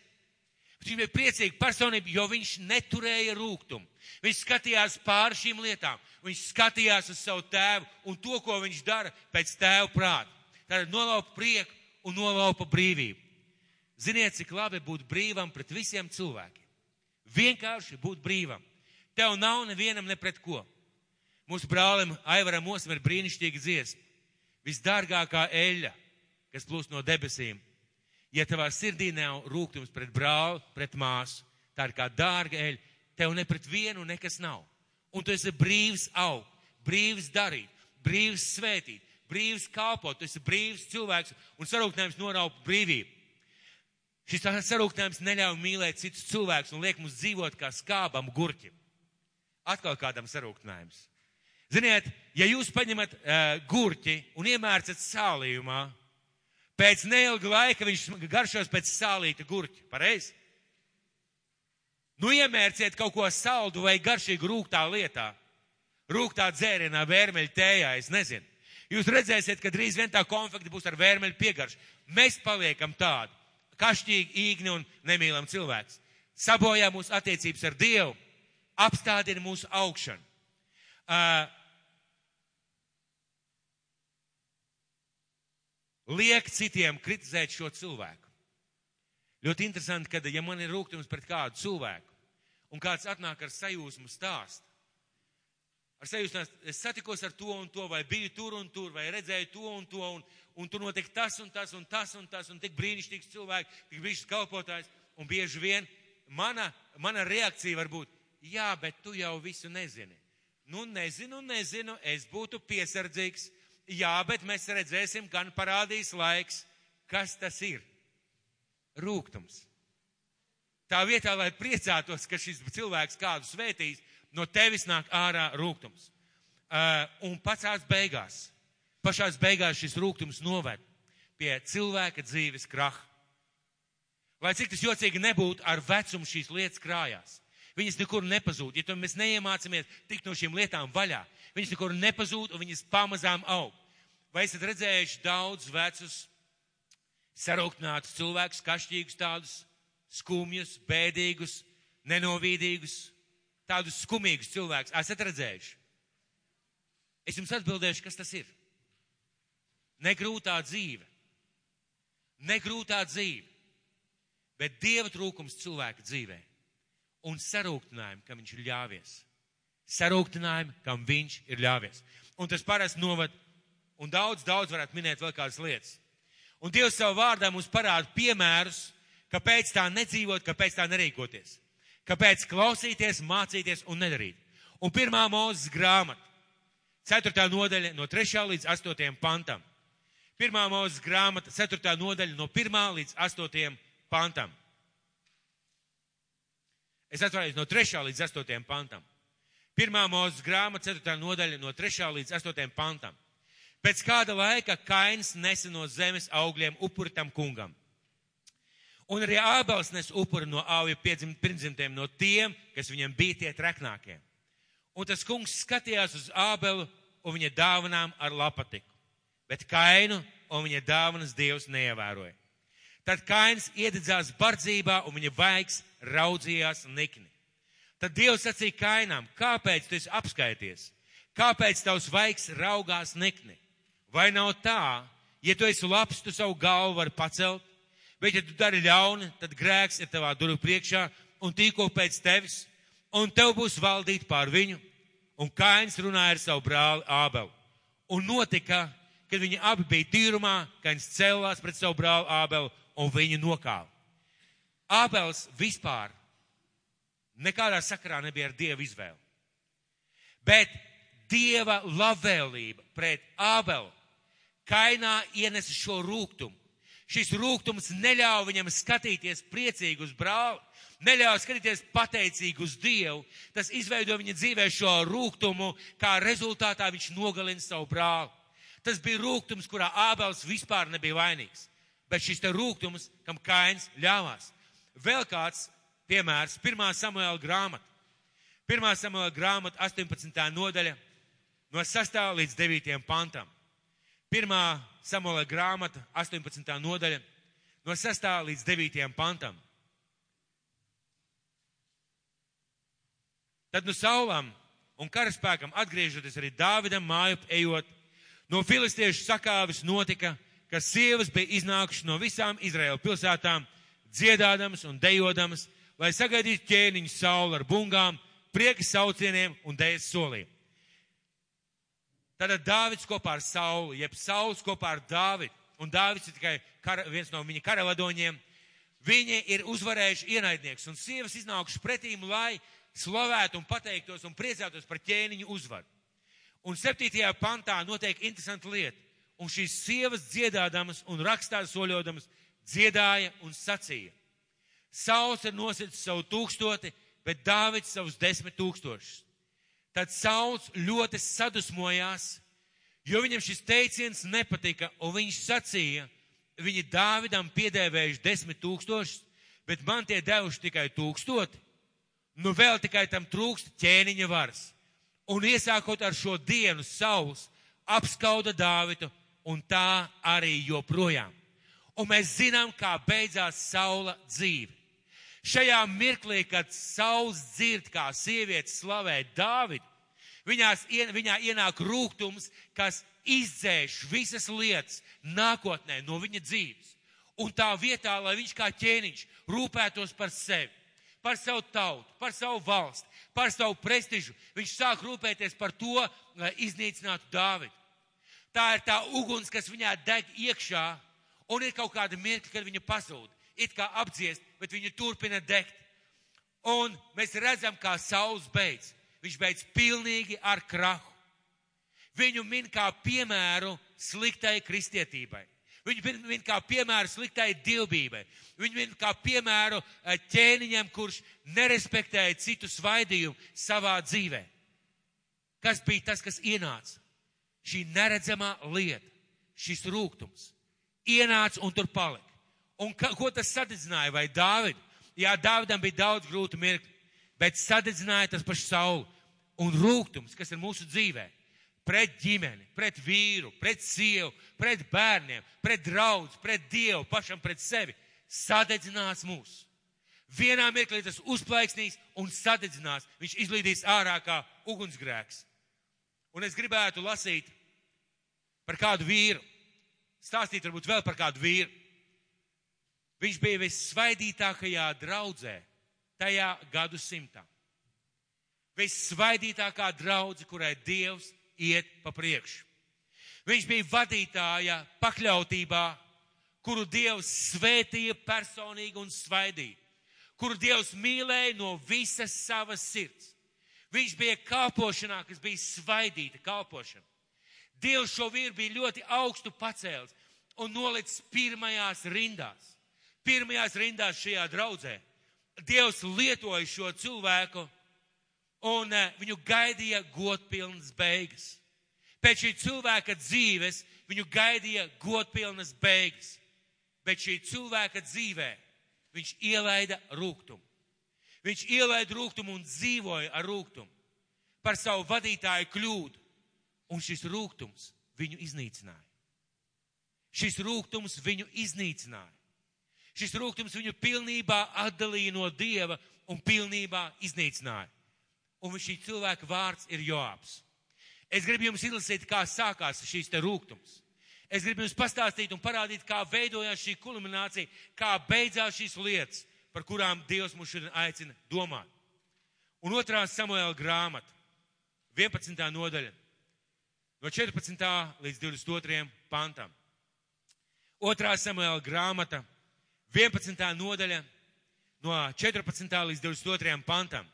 S1: Bet viņš bija priecīga personība, jo viņš neturēja rūgtumu. Viņš skatījās pāri šīm lietām. Viņš skatījās uz savu tēvu un to, ko viņš dara pēc tēva prāta. Tātad nolaupa prieku un nolaupa brīvību. Ziniet, cik labi būt brīvam pret visiem cilvēkiem. Vienkārši būt brīvam. Tev nav nevienam ne pret ko. Mūsu brālim Aivaram Osam ir brīnišķīga dziesma. Visdārgākā eļļa, kas plūst no debesīm. Ja tavā sirdī nav rūgtums pret brāli, pret māsu, tā ir kā dārga eļļa, tev ne pret vienu nekas nav. Un tu esi brīvs augt, brīvs darīt, brīvs svētīt, brīvs kalpot, tu esi brīvs cilvēks un sarūktinājums noraupa brīvību. Šis sarūktinājums neļauj mīlēt citus cilvēkus un liek mums dzīvot kā skābam gurķim. Atkal kādam sarūktinājums. Ziniet, ja jūs paņemat gurķi un iemērcat sālījumā, pēc neilga laika viņš garšos pēc sālīta gurķa. Pareizi? Nu iemērciet kaut ko saldu vai garšīgu rūgtā lietā, rūgtā dzērienā, vērmeļu tējā, es nezinu. Jūs redzēsiet, ka drīz vien tā konfekta būs ar vērmeļu piegaršu. Mēs paliekam tādi, kašķīgi, īgni un nemīlam cilvēks. Sabojā mūsu attiecības ar Dievu, apstādina mūsu augšanu. Liek citiem kritizēt šo cilvēku. Ļoti interesanti, kad, ja man ir rūgtums pret kādu cilvēku, un kāds atnāk ar sajūsmu stāstu, es satikos ar to un to, vai biju tur un tur, vai redzēju to un to, un tur notiek tas un tas un tas un tas, un tik brīnišķīgs cilvēks, tik brīnišķīgs kalpotājs, un bieži vien mana reakcija var būt, jā, bet tu jau visu nezini. Nu, nezinu, es būtu piesardzīgs, jā, bet mēs redzēsim, gan parādīs laiks, kas tas ir. Rūgtums. Tā vietā, lai priecātos, ka šis cilvēks kādu svētīs, no tevis nāk ārā rūgtums. Un pašās beigās šis rūgtums noved pie cilvēka dzīves kraha. Lai cik tas jocīgi nebūtu, ar vecumu šīs lietas krājās. Viņas nekur nepazūd. Ja mēs neiemācāmies tikt no šīm lietām vaļā, viņas nekur nepazūd un viņas pamazām aug. Vai esat redzējuši daudz vecus, sarūktinātus cilvēkus, kašķīgus tādus, skumjus, bēdīgus, nenovīdīgus, tādus skumīgus cilvēkus? Esat redzējuši? Es jums atbildēšu, kas tas ir. Negrūtā dzīve. Negrūtā dzīve. Bet Dieva trūkums cilvēka dzīvē. Un sarūktinājumi, kam viņš ir ļāvies. Sarūktinājumi, kam viņš ir ļāvies. Un tas parasti novad, un daudz varētu minēt vēl kādas lietas. Un Dievs savu vārdā mums parāda piemērus, kāpēc tā nedzīvot, kāpēc tā nerīkoties. Kāpēc klausīties, mācīties un nedarīt. Un 1. Mūzes grāmata, 4. nodaļa no 3. līdz 8. pantam. 1. Mūzes grāmata, 4. nodaļa no 1. līdz 8. pantam. Es atvainojos no 3. līdz 8. pantam. 1. Mūzes grāmata, 4. nodaļa no 3. līdz 8. pantam. Pēc kāda laika Kains nesa no zemes augļiem upuri tam kungam. Un arī Ābels nes upuri no āvju pirmdzimtiem, no tiem, kas viņam bija tie treknākie. Un tas kungs skatījās uz Ābelu un viņa dāvanām ar lapatiku, bet Kainu un viņa dāvanas Dievs neievēroja. Tad Kains iededzās bardzībā un viņa vaigs raudzījās nikni. Tad Dievs sacīja Kainam, kāpēc tu esi apskaities? Kāpēc tavs vaigs raugās nikni? Vai nav tā, ja tu esi labs, tu savu galvu vari pacelt, bet ja tu dari ļauni, tad grēks ir tavā durvju priekšā un tīko pēc tevis, un tev būs valdīt pār viņu. Un Kains runāja ar savu brāli Ābelu. Un notika, kad viņi abi bija tīrumā, Kains cēlās pret savu brāli Ābelu un viņu nokāva. Ābels vispār nekādā sakarā nebija ar Dievu izvēli. Bet Dieva labvēlība pret Ābelu Kainā ienesa šo rūgtumu. Šis rūgtums neļauj viņam skatīties priecīgi uz brāli, neļauj skatīties pateicīgi uz Dievu. Tas izveido viņa dzīvē šo rūgtumu, kā rezultātā viņš nogalina savu brāli. Tas bija rūgtums, kurā Ābels vispār nebija vainīgs. Bet šis te rūgtums, kam Kains ļāvās. Vēl kāds piemērs, 1. Samuēla grāmata. 1. Samuēla grāmata, 18. nodaļa, no 6. līdz 9. pantam. 1. Samuēla grāmata, 18. nodaļa, no 6. līdz 9. pantam. Tad no Saulam un karaspēkam atgriežoties arī Dāvidam māju ejot, no filistiešu sakāves notika, ka sievas bija iznākušas no visām Izraēla pilsētām, dziedādamas un dejodamas, lai sagaidītu ķēniņu Saulu ar bungām, prieka saucieniem un dēļas soliem. Tātad Dāvids kopā ar Saulu, jeb Sauls kopā ar Dāvidu, un Dāvids ir tikai viens no viņa karavadoņiem, viņi ir uzvarējuši ienaidnieks, un sievas iznākušas pretīm, lai slavētu un pateiktos un priecātos par ķēniņu uzvaru. Un 7. pantā notiek interesanta lieta, un šīs sievas dziedādamas un rakstā soļodamas dziedāja un sacīja. Sauls ir nosicis savu 1000, bet Dāvids savus 10 000. Tad Sauls ļoti sadusmojās, jo viņam šis teiciens nepatika, un viņš sacīja, viņi Dāvidam piedēvējuši 10 000, bet man tie devuši tikai 1000. Nu vēl tikai tam trūkst ķēniņa varas. Un iesākot ar šo dienu Sauls apskauda Dāvidu, un tā arī joprojām. Un mēs zinām, kā beidzās Saula dzīve. Šajā mirklī, kad Sauls dzird, kā sieviete slavē Dāvidu, viņā ienāk rūgtums, kas izdzēš visas lietas nākotnē no viņa dzīves. Un tā vietā, lai viņš kā ķēniņš rūpētos par sevi, par savu tautu, par savu valsti, par savu prestižu, viņš sāk rūpēties par to, lai iznīcinātu Dāvidu. Tā ir tā uguns, kas viņā deg iekšā, un ir kaut kāda mirkļa, kad viņa pazūd, it kā apdziest, bet viņa turpina degt. Un mēs redzam, kā Sauls beidz. Viņš beidz pilnīgi ar krahu. Viņu min kā piemēru sliktai kristietībai. Viņu min kā piemēru sliktai dievbībai. Viņu min kā piemēru ķēniņam, kurš nerespektēja citu svaidījumu savā dzīvē. Kas bija tas, kas ienāca? Šī neredzamā lieta, šis rūgtums. Ienāca un tur palika. Un ko tas sadedzināja? Vai Dāvidu? Jā, Dāvidam bija daudz grūtu mirkļu, bet sadedzināja tas pašu Saulu. Un rūgtums, kas ir mūsu dzīvē, pret ģimeni, pret vīru, pret sievu, pret bērniem, pret draudz, pret Dievu, pašam pret sevi, sadedzinās mūs. Vienā mirklī tas uzplaiksnīs un sadedzinās. Viņš izlīdīs ārā kā ugunsgrēks. Un es gribētu lasīt par kādu vīru, stāstīt varbūt vēl par kādu vīru. Viņš bija vissvaidītākajā draudzē tajā gadsimtā. Vissvaidītākā draudze, kurai Dievs iet pa priekšu. Viņš bija vadītāja pakļautībā, kuru Dievs svētīja personīgi un svaidīja, kuru Dievs mīlēja no visas savas sirds. Viņš bija kalpošanā, kas bija svaidīta kalpošana. Dievs šo vīru bija ļoti augstu pacēlis un nolicis pirmajās rindās. Pirmajās rindās šajā draudzē. Dievs lietoja šo cilvēku un viņu gaidīja godpilnas beigas. Pēc šī cilvēka dzīves viņu gaidīja godpilnas beigas. Bet šī cilvēka dzīvē viņš ielaida rūgtumu. Viņš ielaida rūgtumu un dzīvoja ar rūgtumu par savu vadītāju kļūdu. Un šis rūgtums viņu iznīcināja. Šis rūgtums viņu iznīcināja. Šis rūgtums viņu pilnībā atdalīja no Dieva un pilnībā iznīcināja. Un šī cilvēka vārds ir Joabs. Es gribu jums izlasīt, kā sākās šīs te rūgtums. Es gribu jums pastāstīt un parādīt, kā veidojās šī kulminācija, kā beidzās šīs lietas, par kurām Dievs mūs šodien aicina domāt. Un 2. Samuēla grāmata, 11. nodaļa, no 14. līdz 22. pantam. 2. Samuēla grāmata, 11. nodaļa, no 14. līdz 22. pantam.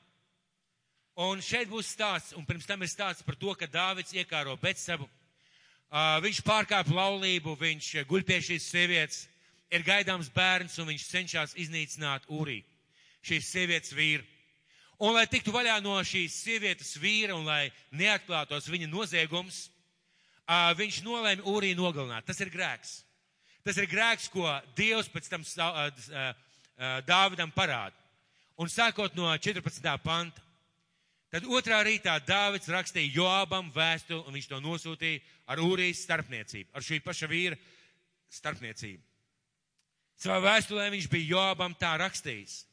S1: Un šeit būs stāsts, un pirms tam ir stāsts par to, ka Dāvids iekāro Betsabu. Viņš pārkāpa laulību, viņš guļ pie šīs sievietes, ir gaidāms bērns, un viņš cenšas iznīcināt Urī, šīs sievietes vīru. Un, lai tiktu vaļā no šīs sievietes vīra un lai neatklātos viņa noziegums, viņš nolēma Urī nogalināt. Tas ir grēks. Tas ir grēks, ko Dievs pēc tam Dāvidam parāda. Un sākot no 14. panta, tad 2. rītā Dāvids rakstīja Joabam vēstuli, un viņš to nosūtīja ar Urijas starpniecību, ar šī paša vīra starpniecību. Savā vēstulē viņš bija Joabam tā rakstījis: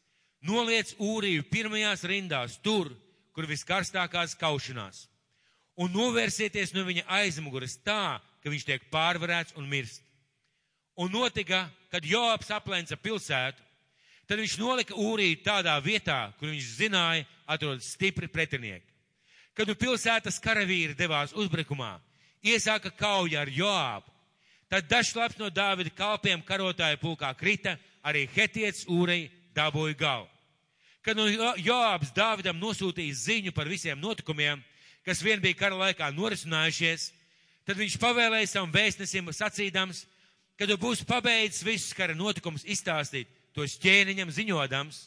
S1: noliec Uriju pirmajās rindās tur, kur viskarstākās kaušanās, un novērsieties no viņa aizmugures tā, ka viņš tiek pārvarēts un mirst. Un notika, kad Joabs aplenca pilsētu, tad viņš nolika Uriju tādā vietā, kur viņš zināja, atrodas stipri pretinieki. Kad nu pilsētas karavīri devās uzbrukumā, iesāka kauja ar Joabu, tad dažs labs no Dāvida kalpiem karotāju pulkā krita, arī hetietis Urija dabūja galvu. Kad nu Joabs Dāvidam nosūtīja ziņu par visiem notikumiem, kas vien bija kara laikā norisinājušies, tad viņš pavēlēja savam vēstnesim sacīdams, kad tu būsi pabeidzis visus kara notikumus izstāstīt, tos ķēniņam ziņodams,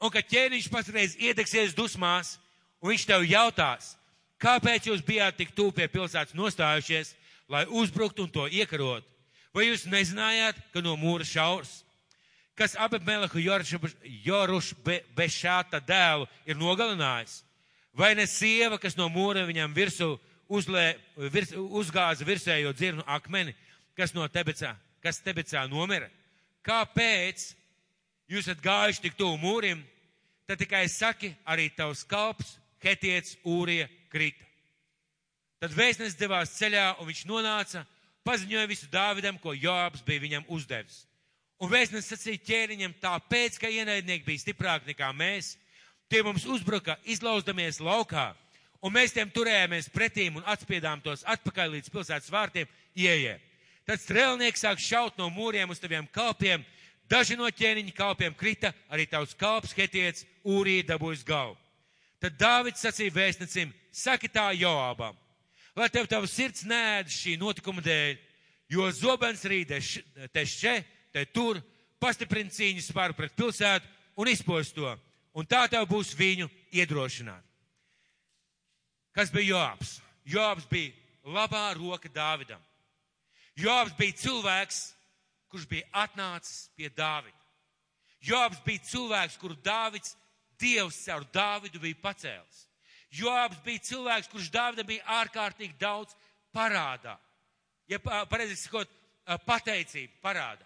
S1: un kad ķēniņš patreiz iedegsies dusmās, un viņš tev jautās, kāpēc jūs bijāt tik tuvu pie pilsētas nostājušies, lai uzbruktu un to iekarot? Vai jūs nezinājāt, ka no mūra šaurs? kas Abimelehu Jorušbešāta dēlu ir nogalinājis? Vai ne sieva, kas no mūra viņam virsū uzgāza virsējo dzirnu akmeni, kas Tebecā nomira? Kāpēc jūs esat gājuši tik tuvu mūrim? Tad tikai saki, arī tavs kalps, Hetiets Ūrija krita. Tad vēstnesis devās ceļā, un viņš nonāca, paziņoja visu Dāvidam, ko Joabs bija viņam uzdevis. Un vēstnesis sacīja ķēniņam, tāpēc, ka ienaidnieki bija stiprāki nekā mēs, tie mums uzbruka, izlauzdamies laukā, un mēs tiem turējāmies pretīm un atspiedām tos atpakaļ līdz pilsētas vārtiem ieejē. Tad strēlnieks sāk šaut no mūriem uz taviem kalpiem, daži no ķēniņa kalpiem krita, arī tavs kalps Hetiets Ūrija dabūjis galvu. Tad Dāvids sacīja vēstnecim, saki tā Joabam, lai tev tava sirds neēd šī notikuma dēļ, jo zobens rīd te šķe, te tur, pastiprina cīņas spāru pret pilsētu un izpost to, un tā tev būs viņu iedrošināt. Kas bija Joabs? Joabs bija labā roka Dāvidam. Joabs bija cilvēks, kurš bija atnācis pie Dāvida. Joabs bija cilvēks, kuru Dievs caur Dāvidu bija pacēlis. Joabs bija cilvēks, kurš Dāvidam bija ārkārtīgi daudz parādā. Ja pareizi sakot, pateicību parādā.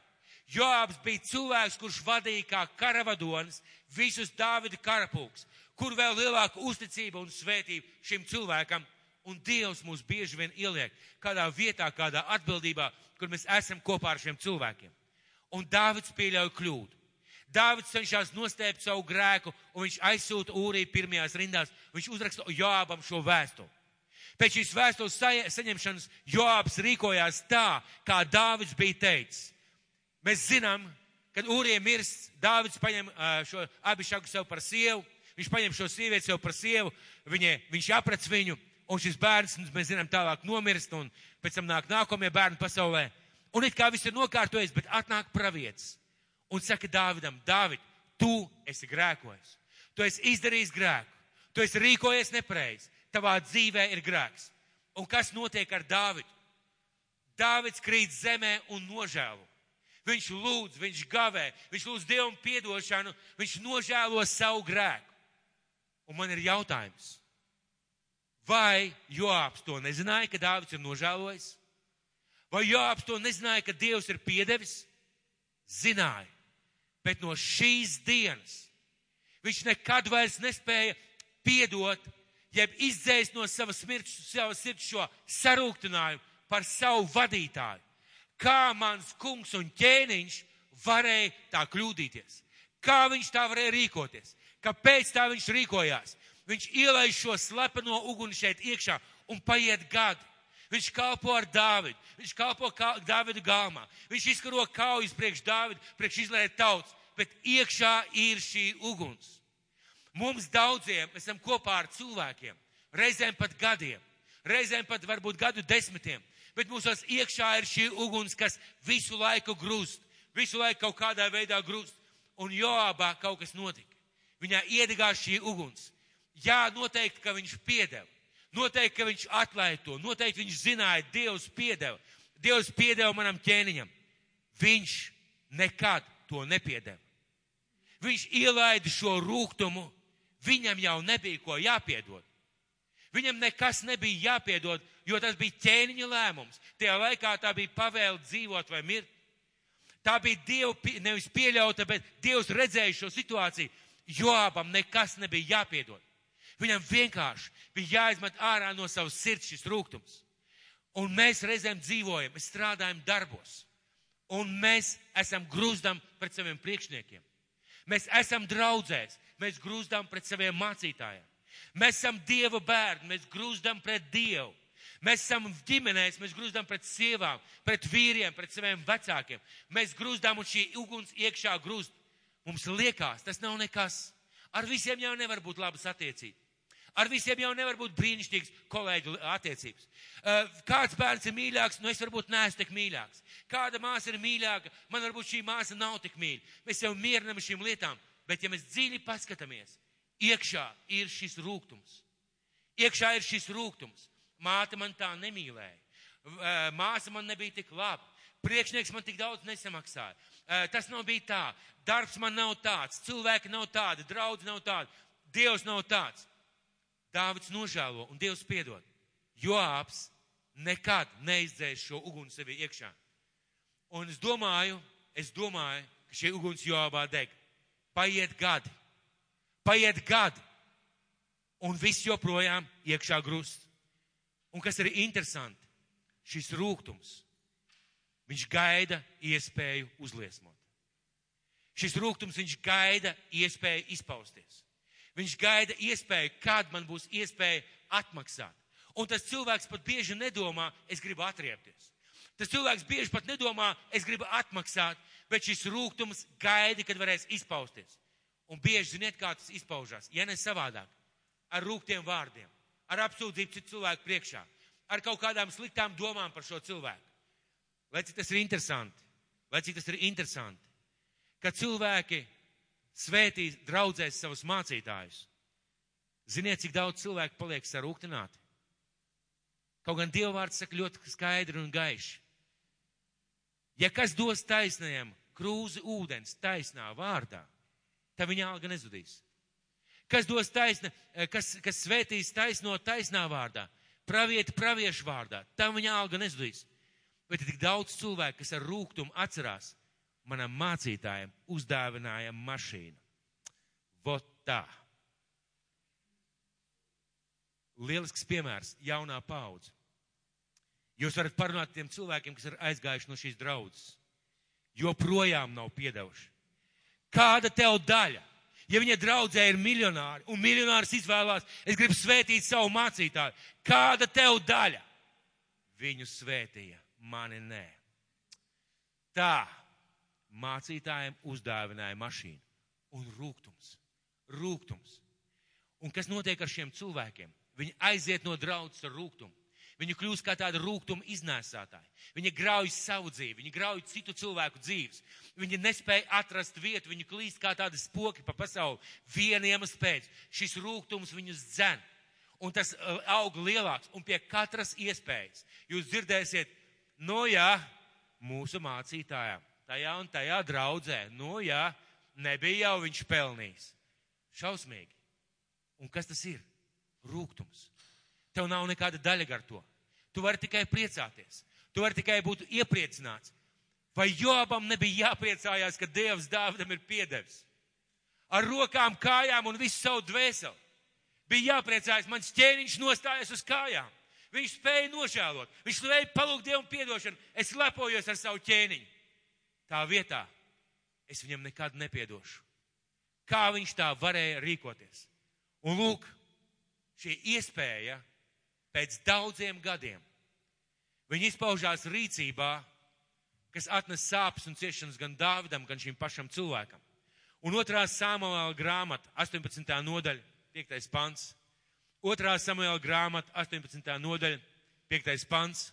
S1: Joabs bija cilvēks, kurš vadīja kā karavadonis visus Dāvida karapulks, kur vēl lielāka uzticība un svētība šim cilvēkam. Un Dievs mūs bieži vien ieliek kādā vietā, kādā atbildībā, kur mēs esam kopā ar šiem cilvēkiem. Un Dāvids pieļauj kļūdu. Dāvids cenšas nostēpt savu grēku, un viņš aizsūta Ūriju pirmajās rindās. Viņš uzraksta Joabam šo vēstuli. Pēc šīs vēstules saņemšanas Joabs rīkojās tā, kā Dāvids bija teicis. Mēs zinām, kad Ūrija mirst, Dāvids paņem šo Abišagu sev par sievu, viņš paņem šo sievieti sev par sievu, viņš aprec viņu, un šis bērns, mēs zinām, tālāk nomirst, un pēc tam nāk nākamie bērni pasaulē. Un it kā viss ir nokārtojies, bet atnāk pravietis. Un saka Dāvidam, Dāvid, tu esi grēkojis. Tu esi izdarījis grēku. Tu esi rīkojies nepareizi. Tavā dzīvē ir grēks. Un kas notiek ar Dāvidu? Dāvids krīt zemē un nožēlo. Viņš lūdz, viņš gavē, viņš lūdz Dievam piedošanu, viņš nožēlo savu grēku. Un man ir jautājums, vai Joabs to nezināja, ka Dāvids ir nožēlojis? Vai Joabs to nezināja, ka Dievs ir piedevis? Zināja. Bet no šīs dienas viņš nekad vairs nespēja piedot, jeb izdzēst no savas sirds šo sarūktinājumu par savu vadītāju. Kā mans kungs un ķēniņš varēja tā kļūdīties? Kā viņš tā varēja rīkoties? Kāpēc tā viņš rīkojās? Viņš ielaiž šo slepeno uguni šeit iekšā un paiet gadi. Viņš kalpo ar Dāvidu, viņš kalpo Dāvidu galmā, viņš izkaro kaujas priekš Dāvidu, priekš Izraēla tautas, bet iekšā ir šī uguns. Mums daudziem esam kopā ar cilvēkiem, reizēm pat gadiem, reizēm pat varbūt gadu desmitiem, bet mūsos iekšā ir šī uguns, kas visu laiku grūst, visu laiku kaut kādā veidā grūst. Un Joabā kaut kas notika. Viņā iedegās šī uguns. Jā, noteikti, ka viņš piedeva. Noteikti, ka viņš atlaida to. Noteikti viņš zināja, Dievs piedeva. Dievs piedeva manam ķēniņam. Viņš nekad to nepiedeva. Viņš ielaida šo rūgtumu. Viņam jau nebija ko jāpiedod. Viņam nekas nebija jāpiedod, jo tas bija ķēniņa lēmums. Tajā laikā tā bija pavēle dzīvot vai mirt. Tā bija Dieva nevis pieļauta, bet Dievs redzēja šo situāciju. Joabam nekas nebija jāpiedod. Viņam vienkārši bija jāizmet ārā no savas sirds šis rūgtums. Un mēs reizēm dzīvojam, mēs strādājam darbos. Un mēs esam grūzdam pret saviem priekšniekiem. Mēs esam draudzēs, mēs grūzdam pret saviem mācītājiem. Mēs esam Dieva bērni, mēs grūzdam pret Dievu. Mēs esam ģimenēs, mēs grūzdam pret sievām, pret vīriem, pret saviem vecākiem. Mēs grūzdam un šī uguns iekšā grūst. Mums liekas, tas nav nekas. Ar visiem jau nevar būt labas attiecības. Ar visiem jau nevar būt brīnišķīgas kolēģu attiecības. Kāds bērns ir mīļāks, nu es varbūt neesmu tik mīļāks. Kāda māsa ir mīļāka, man varbūt šī māsa nav tik mīļa. Mēs jau mierinam šīm lietām, bet ja mēs dziļi paskatāmies, iekšā ir šis rūgtums. Iekšā ir šis rūgtums. Māte man tā nemīlēja. Māsa man nebija tik laba. priekšnieks man tik daudz nesamaksāja. Tas nav bija tā. Darbs man nav tāds. Cilvēki nav tādi. Draudz nav tādi. Dievs nav tāds. Dāvids nožēlo un Dievs piedod. Joābs nekad neizdzēs šo uguni sevi iekšā. Un es domāju, ka šī uguns Joābā deg. Paiet gadi. Un viss joprojām iekšā grust. Un kas ir interesanti, šis rūgtums, viņš gaida iespēju uzliesmot. Šis rūgtums, viņš gaida iespēju izpausties. Viņš gaida iespēju, kad man būs iespēja atmaksāt. Un tas cilvēks pat bieži nedomā, es gribu atriepties. Tas cilvēks bieži pat nedomā, es gribu atmaksāt, bet šis rūgtums gaida, kad varēs izpausties. Un bieži, ziniet, kā tas izpaužās, ja ne savādāk, ar rūgtiem vārdiem, ar apsūdzību citu cilvēku priekšā, ar kaut kādām sliktām domām par šo cilvēku. Lai cik tas ir interesanti, ka cilvēki svētīs, draudzēs savus mācītājus. Ziniet, cik daudz cilvēku paliek sarūktināti? Kaut gan Dieva vārds saka ļoti skaidri un gaiši. Ja kas dos taisnajam krūzi ūdens taisnā vārdā, tad viņa alga nezudīs. Kas dos kas svētīs taisno taisnā vārdā, pravieti praviešu vārdā, tam viņa alga nezudīs. Bet ir tik daudz cilvēku, kas ar rūgtumu atcerās, manam mācītājam uzdāvināja mašīnu. Vot tā. Lielisks piemērs, jaunā paudze. Jūs varat parunāt tiem cilvēkiem, kas ir aizgājuši no šīs draudzes. Joprojām nav piedevuši. Kāda tev daļa? Ja viņa draudzē ir miljonāri, un miljonārs izvēlās, es gribu svētīt savu mācītāju. Kāda tev daļa? Viņu svētīja, mani nē. Tā mācītājiem uzdāvināja mašīnu. Un rūgtums. Un kas notiek ar šiem cilvēkiem? Viņi aiziet no draudzes ar rūgtumu. Viņi kļūst kā tāda rūgtuma iznēsātāji. Viņi grauj savu dzīvi, viņi grauj citu cilvēku dzīves. Viņi nespēja atrast vietu, viņi klīst kā tādi spoki pa pasauli. Viena iemesla pēc. Šis rūgtums viņus dzen. Un tas aug lielāks. Un pie katras iespējas jūs dzirdēsiet, mūsu mācītājām, tajā un tajā draudzē, nebija jau viņš pelnījis. Šausmīgi. Un kas tas ir? Rūgtums. Tev nav nekāda daļa gar to. Tu vari tikai priecāties. Tu vari tikai būt iepriecināts. Vai Joabam nebija jāpriecājās, ka Dievs Dāvidam ir piedevis? Ar rokām, kājām un visu savu dvēseli. Bija jāpriecājas, mans ķēniņš nostājas uz kājām. Viņš spēja nožēlot. Viņš spēja palūgt Dievu piedošanu. Es lepojos ar savu ķēniņu. Tā vietā es viņam nekad nepiedošu. Kā viņš tā varēja rīkoties? Un lūk, šī iespēja pēc daudziem gadiem. Viņi izpaužās rīcībā, kas atnes sāpes un ciešanas gan Dāvidam, gan šim pašam cilvēkam. Un 2. Samuēla grāmata, 18. nodaļa, 5. pants. 2. Samuēla grāmata, 18. nodaļa, 5. pants.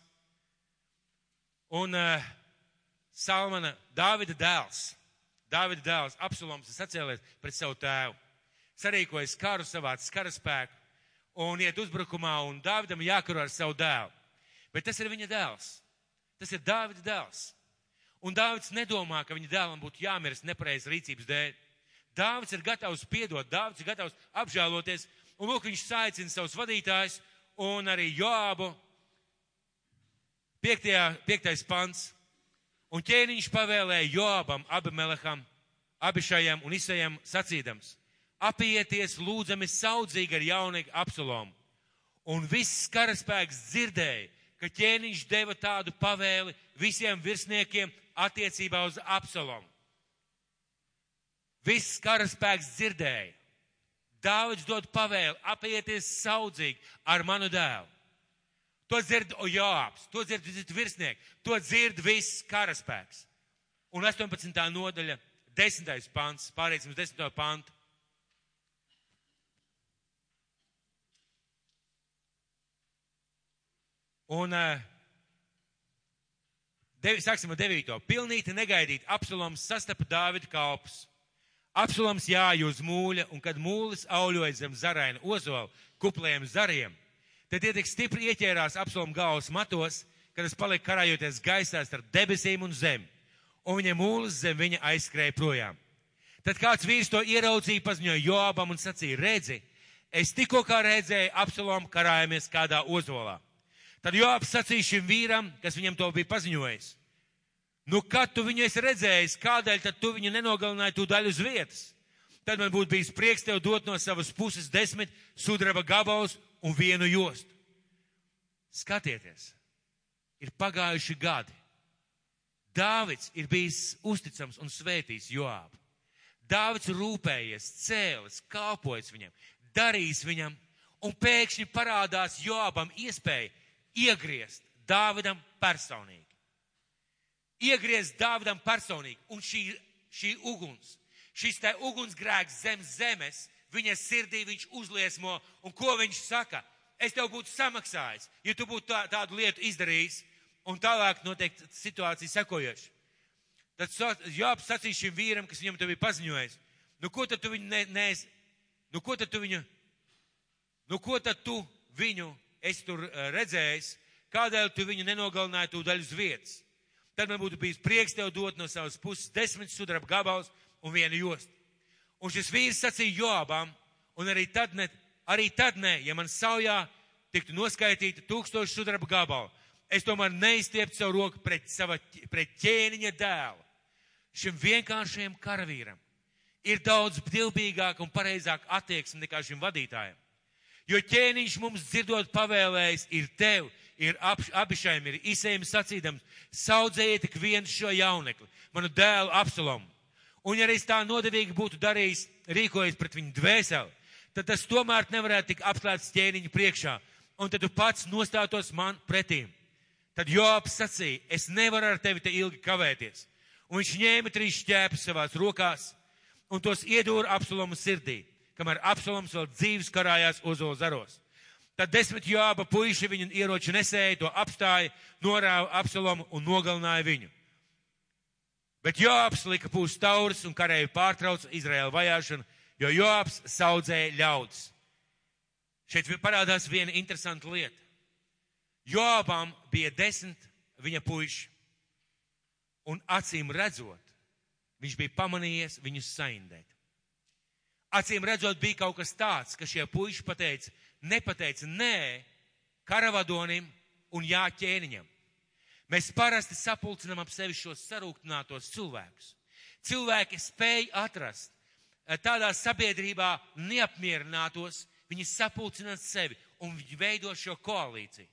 S1: Un Dāvida dēls, Absaloms, sacēlies pret savu tēvu. Sarīkojas karu, savāc karaspēku un iet uzbrukumā, un Dāvidam jākaro ar savu dēlu. Bet tas ir viņa dēls. Tas ir Dāvida dēls. Un Dāvids nedomā, ka viņa dēlam būtu jāmirst nepareizas rīcības dēļ. Dāvids ir gatavs piedot, Dāvids ir gatavs apžēloties, un lūk, viņš saicina savus vadītājus un arī Joābu. 5. pants. Un ķēniņš pavēlēja Joābam, Abimeleham, Abišajam un Isajam sacīdams: apieties lūdzami saudzīgi ar jaunīgu Absalomu. Un viss karaspēks dzirdēja, ka ķēniņš deva tādu pavēli visiem virsniekiem attiecībā uz Absalomu. Viss karaspēks dzirdēja. Dāvids dod pavēli, apieties saudzīgi ar manu dēlu. To dzird Joābs, to dzird virsnieki, to dzird viss karaspēks. Un 18. nodaļa, 10. pants, pārēsim uz 10. pantu. Un sāksim ar 9. Pilnīti negaidīt, Absaloms sastapa Dāvida kalpus. Absaloms jāja uz mūļa, un kad mūlis auļoja zem zaraina ozola kuplējiem zariem, tad tie tik stipri ieķērās Absaloma galvas matos, kad es paliku karājoties gaisā starp debesīm un zemi, un viņa mūlis zem viņa aizskrēja projām. Tad kāds vīrs to ieraudzīja, paziņoja Joabam un sacīja, redzi, es tikko kā redzēju Absalomu karājamies kādā ozolā. Tad Joabs sacīja šim vīram, kas viņam to bija paziņojis, nu, kad tu viņu esi redzējis, kādēļ tad tu viņu nenogalināji tūdaļ uz vietas? Tad man būtu bijis prieks tev dot no savas puses 10 sudraba gabalus un 1 jostu. Skatieties, ir pagājuši gadi. Dāvids ir bijis uzticams un svētījis Joabu. Dāvids rūpējies, cēlis, kalpojis viņam, darījis viņam, un pēkšņi parādās Joabam iespēja iegriezt Dāvidam personīgi. Iegriezt Dāvidam personīgi, un šī uguns, šis te ugunsgrēks zem zemes, viņa sirdī viņš uzliesmo, un ko viņš saka? Es tev būtu samaksājis, ja tu būtu tādu lietu izdarījis, un tālāk notiek situācija sekojoša. Tad Joabs sacīja šim vīram, kas viņam to bija paziņojis, nu ko tad tu viņu esi tur redzējis, kādēļ tu viņu nenogalināji tūdaļ uz vietas? Tad man būtu bijis prieks tev dot no savas puses 10 sudraba gabalus un 1 jostu. Un šis vīrs sacīja Joabam, un arī tad ne, ja man saujā tiktu noskaitīta 1000 sudraba gabalu, es tomēr neizstieptu savu roku pret ķēniņa dēlu. Šim vienkāršajam karavīram ir daudz ptilbīgāk un pareizāk attieksme nekā šim vadītājam. Jo ķēniņš mums dzirdot pavēlējis ir tev, ir Abišajam, ir Isejam sacīdams, saudzējiet tik viens šo jaunekli, manu dēlu Absalomu. Un ja arī tā nodevīgi būtu darījis, rīkojies pret viņu dvēseli, tad tas tomēr nevarētu tik apslēpts ķēniņa priekšā, un tad tu pats nostātos man pretīm. Tad Joabs sacīja, es nevaru ar tevi te ilgi kavēties. Un viņš ņēma 3 šķēpes savās rokās un tos iedūra Absalomu sirdī, kamēr Absaloms vēl dzīves karājās ozola zaros. Tad 10 Joaba puiši viņu ieroču nesēja, to apstāja, norāva Absalomu un nogalināja viņu. Bet Joabs lika pūst tauris un kareju pārtrauca Izraēla vajāšanu, jo Joabs saudzēja ļaudis. Šeit parādās viena interesanta lieta. Joabam bija 10 viņa puiši, un acīm redzot, viņš bija pamanījies viņus saindēt. Acīm redzot, bija kaut kas tāds, ka šie puiši nepateica nē karavadonim un jā ķēniņam. Mēs parasti sapulcinām ap sevi šos sarūktinātos cilvēkus. Cilvēki spēj atrast tādā sabiedrībā neapmierinātos, viņi sapulcināt sevi un viņi veido šo koalīciju.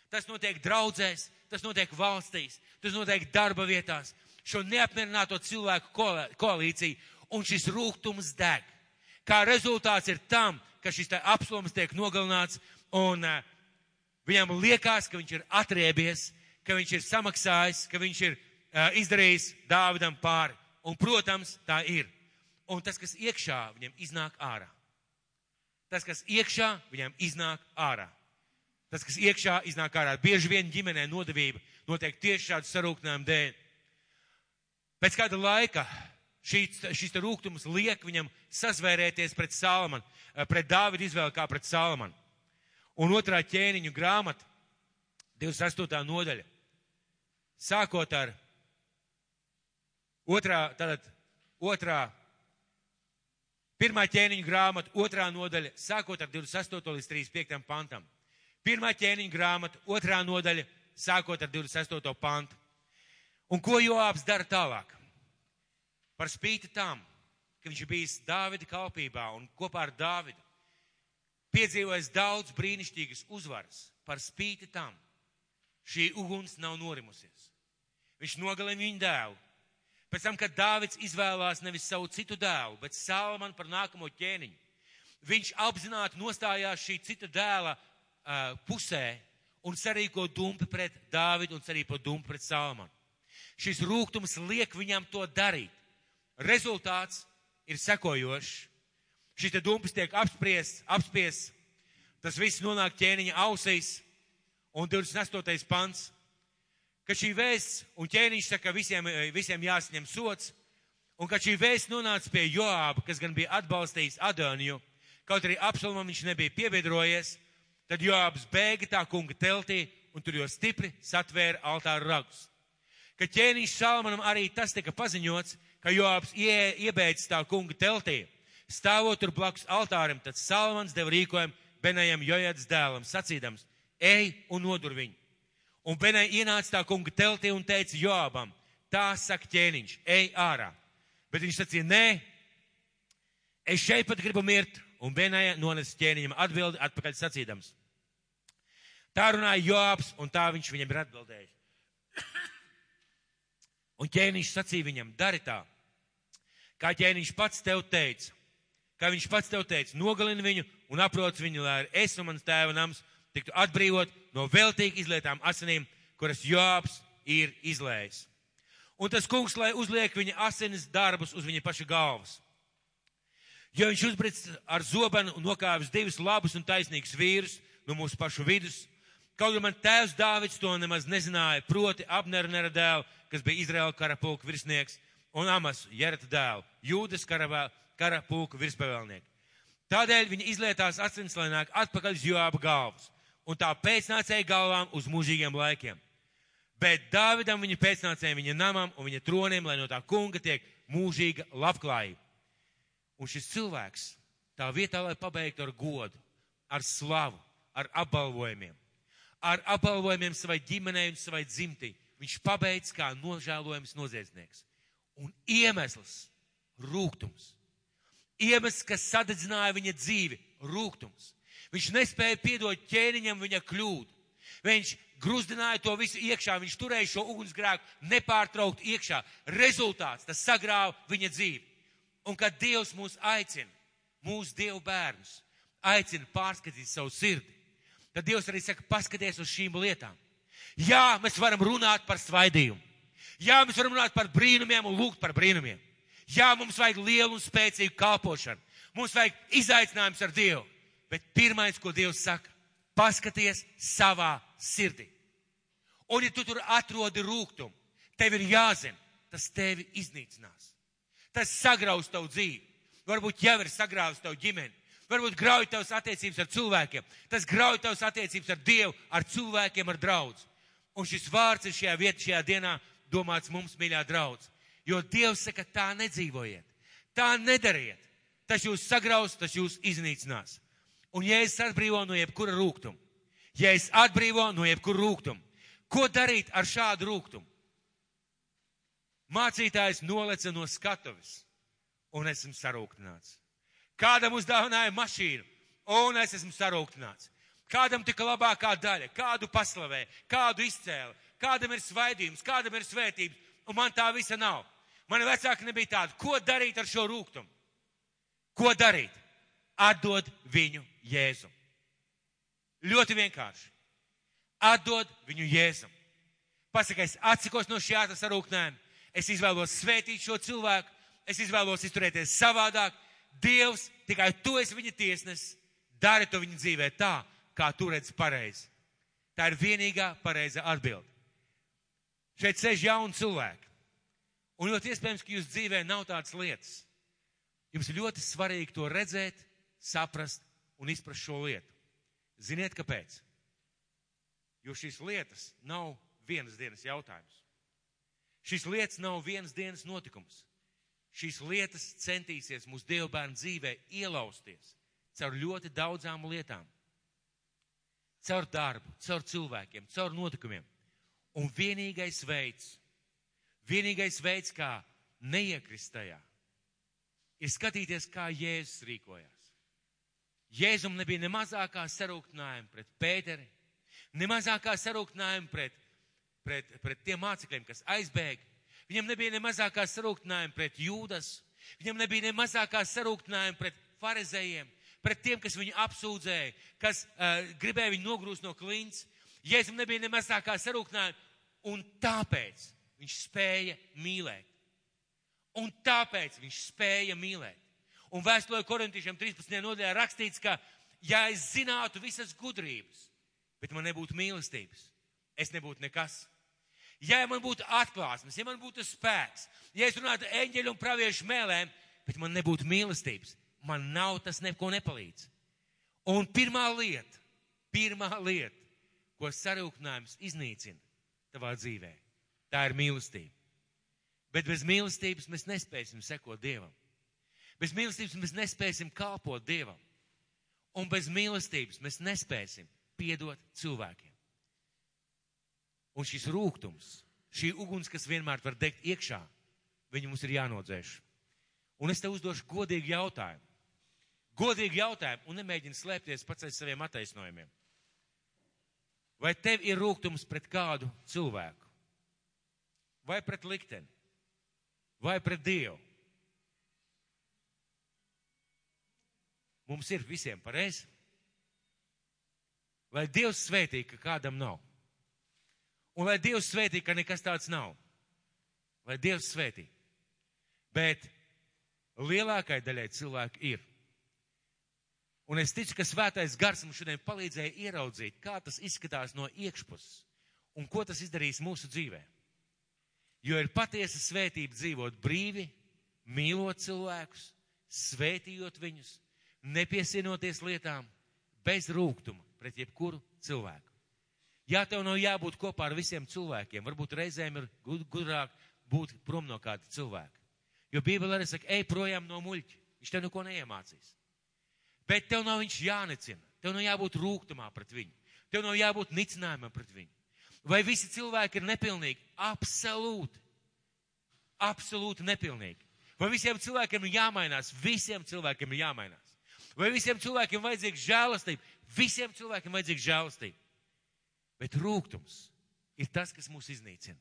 S1: Tas notiek draudzēs, tas notiek valstīs, tas notiek darba vietās, šo neapmierināto cilvēku koalīciju, un šis rūgtums deg. Kā rezultāts ir tam, ka šis Absaloms tiek nogalināts, un viņam liekas, ka viņš ir atriebies, ka viņš ir samaksājis, ka viņš ir izdarījis Dāvidam pāri. Un, protams, tā ir. Un tas, kas iekšā, viņam iznāk ārā. Tas, kas iekšā, viņam iznāk ārā. Tas, kas iekšā, iznāk ārā. Bieži vien ģimenē nodevība notiek tieši šādu sarūktinājumu dēļ. Pēc kāda laika šis rūgtums liek viņam sazvērēties pret Salamanu, pret Dāvidu izvēli kā pret Salamanu. Un 2. ķēniņu grāmata, 28. nodaļa, sākot ar 1. ķēniņu grāmatu, 2. nodaļa, sākot ar 28. līdz 35. pantam. 1. ķēniņu grāmata, 2. nodaļa, sākot ar 28. pantu. Un ko Joabs dara tālāk? Par spīti tam, ka viņš bijis Dāvida kalpībā un kopā ar Dāvidu piedzīvojis daudz brīnišķīgas uzvaras, par spīti tam šī uguns nav norimusies. Viņš nogalina viņu dēlu. Pēc tam, kad Dāvids izvēlās nevis savu citu dēlu, bet Salamanu par nākamo ķēniņu, viņš apzināti nostājās šī cita dēla pusē un sarīko dumpi pret Dāvidu un sarīko dumpi pret Salamanu. Šis rūgtums liek viņam to darīt. Rezultāts ir sekojošs. Šis te dumpis tiek apspiests, tas viss nonāk ķēniņa ausīs, un 28. pants, ka šī vēsts, un ķēniņš saka, visiem jāsaņem sots, un kad šī vēsts nonāca pie Joāba, kas gan bija atbalstījis Adoniju, kaut arī Absalomam viņš nebija piebiedrojies, tad Joābs bēga tā kunga teltī un tur jau stipri satvēra altāru ragus. Kad ķēniņš Salmanam arī tas tika paziņots, ka Joabs iebeidz tā kunga teltī, stāvot tur blakus altārim, tad Salmans deva rīkojumu Benajam Jojadas dēlam, sacīdams, ej un nodur viņu. Un Benai ienāca tā kunga teltī un teica Joabam, tā saka ķēniņš, ej ārā. Bet viņš sacīja, nē, es šeit pat gribu mirt, un Benaja nonesa ķēniņam atbildi atpakaļ sacīdams. Tā runāja Joabs, un tā viņš viņam ir atbildējis. Un ķēniņš sacīja viņam, dari tā, kā ķēniņš pats tev teica, nogalini viņu un aproc viņu, lai es un mans tēva nams tiktu atbrīvot no veltīgi izlietām asinīm, kuras Joabs ir izlējis. Un tas kungs, lai uzliek viņa asinis darbus uz viņa paša galvas. Jo viņš uzbric ar zobenu un nokāvis divus labus un taisnīgus vīrus no mūsu pašu vidus, kaut gan man tēvs Dāvids to nemaz nezināja, proti Abnera dēlu, kas bija Izraēla kara pulka virsnieks, un Amasu, Jerata dēlu, Jūdas kara pulka virspavēlnieku. Tādēļ viņa izlietās asins, lai nāk atpakaļ uz Joaba galvas, un tā pēcnācēja galvām uz mūžīgiem laikiem. Bet Dāvidam viņa pēcnācēja viņa namam un viņa troniem, lai no tā kunga tiek mūžīga labklājība. Un šis cilvēks tā vietā, lai pabeigtu ar godu, ar slavu, ar apbalvojumiem savai ģimenei un savai dzimtī, viņš pabeidz kā nožēlojams noziedznieks. Un iemesls - rūgtums. Iemesls, kas sadedzināja viņa dzīvi - rūgtums. Viņš nespēja piedot ķēniņam viņa kļūdu. Viņš gruzdināja to visu iekšā, viņš turēja šo ugunsgrēku nepārtraukt iekšā. Rezultāts, tas sagrāva viņa dzīvi. Un kad Dievs mūs aicina, mūsu Dievu bērnus, aicina pārskatīt savu sirdi, tad Dievs arī saka, paskaties uz šīm lietām. Jā, mēs varam runāt par svaidījumu. Jā, mēs varam runāt par brīnumiem un lūgt par brīnumiem. Jā, mums vajag lielu un spēcīgu kalpošanu. Mums vajag izaicinājums ar Dievu. Bet pirmais, ko Dievs saka, paskaties savā sirdī. Un ja tu tur atrodi rūgtumu, tev ir jāzina, tas tevi iznīcinās. Tas sagraus tavu dzīvi. Varbūt jau ir sagrāvis tavu ģimeni. Varbūt grauj tavas attiecības ar cilvēkiem. Tas grauj tavas attiecības ar Dievu, ar cilvēkiem, ar draudz. Un šis vārds ir šajā vietā, šajā dienā domāts mums, mīļā draudz. Jo Dievs saka, tā nedzīvojiet. Tā nedariet. Tas jūs sagraus, tas jūs iznīcinās. Un ja es atbrīvo no jebkura rūgtuma, ko darīt ar šādu rūgtumu? Mācītājs noleca no skatuves, un esmu sarūktināts. Kādam uzdāvināja mašīnu, un es esmu sarūktināts. Kādam tika labākā daļa, kādu paslavē, kādu izcēla, kādam ir svaidījums, kādam ir svētības, un man tā visa nav. Mani vecāki nebija tādi. Ko darīt ar šo rūgtumu? Ko darīt? Atdod viņu Jēzum. Ļoti vienkārši. Atdod viņu Jēzum. Pasaka, es atsakos no šī sarūktinājuma. Es izvēlos svētīt šo cilvēku. Es izvēlos izturēties savādāk. Dievs, tikai tu esi viņa tiesnesis. Dari to viņa dzīvē tā, kā tu redzi pareizi. Tā ir vienīgā pareiza atbilde. Šeit sēž jauni cilvēki. Un ļoti iespējams, ka jūs dzīvē nav tādas lietas. Jums ir ļoti svarīgi to redzēt, saprast un izprast šo lietu. Ziniet, kāpēc? Jo šīs lietas nav vienas dienas jautājums. Šīs lietas nav vienas dienas notikums. Šīs lietas centīsies mūsu Dieva bērnu dzīvē ielausties caur ļoti daudzām lietām. Caur darbu, caur cilvēkiem, caur notikumiem. Un vienīgais veids, kā neiekrist tajā, ir skatīties, kā Jēzus rīkojās. Jēzum nebija ne mazākā sarūktinājuma pret Pēteri, ne mazākā sarūktinājuma pret tiem mācekļiem, kas aizbēga. Viņam nebija ne mazākā sarūktinājuma pret Jūdas, viņam nebija ne mazākā sarūktinājuma pret farizējiem, pret tiem, kas viņu apsūdzēja, kas gribēja viņu nogrūst no klints. Jēzum nebija ne mazākā sarūktinājuma, un tāpēc viņš spēja mīlēt. Un vēstulē Korintiešiem 13. nodaļā rakstīts, ka ja es zinātu visas gudrības, bet man nebūtu mīlestības, es nebūtu nekas. Ja man būtu atklāsmes, ja man būtu spēks, ja es runātu eņģeļu un praviešu mēlēm, bet man nebūtu mīlestības, man nav tas neko nepalīdz. Un pirmā lieta, ko ko sarūktinājums iznīcina tavā dzīvē. Tā ir mīlestība. Bet bez mīlestības mēs nespēsim sekot Dievam. Bez mīlestības mēs nespēsim kalpot Dievam. Un bez mīlestības mēs nespēsim piedot cilvēkiem. Un šis rūgtums, šī uguns, kas vienmēr var degt iekšā, viņu mums ir jānodzēš. Un es te uzdošu godīgu jautājumu. Godīgu jautājumu un nemēģini slēpties pats aiz saviem attaisnojumiem. Vai tev ir rūgtums pret kādu cilvēku? Vai pret likteni? Vai pret Dievu? Mums ir visiem pareizi. Lai Dievs svētī, ka kādam nav. Un lai Dievs svētī, ka nekas tāds nav. Lai Dievs svētī. Bet lielākai daļai cilvēku ir. Un es ticu, ka svētais gars mums šodien palīdzēja ieraudzīt, kā tas izskatās no iekšpuses un ko tas izdarīs mūsu dzīvē. Jo ir patiesa svētība dzīvot brīvi, mīlot cilvēkus, svētījot viņus, nepiesienoties lietām, bez rūgtuma pret jebkuru cilvēku. Ja tev nav jābūt kopā ar visiem cilvēkiem, varbūt reizēm ir gudrāk būt prom no kāda cilvēka. Jo Bībele arī saka, ej projām no muļķa, viņš tev neko neiemācīs. Bet tev nav viņš jānicina, tev nav jābūt rūgtumā pret viņu, tev nav jābūt nicinājumam pret viņu. Vai visi cilvēki ir nepilnīgi? Absolūti. Absolūti nepilnīgi. Vai visiem cilvēkiem ir jāmainās? Visiem cilvēkiem ir jāmainās. Vai visiem cilvēkiem vajadzīga žēlastība? Visiem cilvēkiem vajadzīga žēlastība. Bet rūgtums ir tas, kas mūs iznīcina.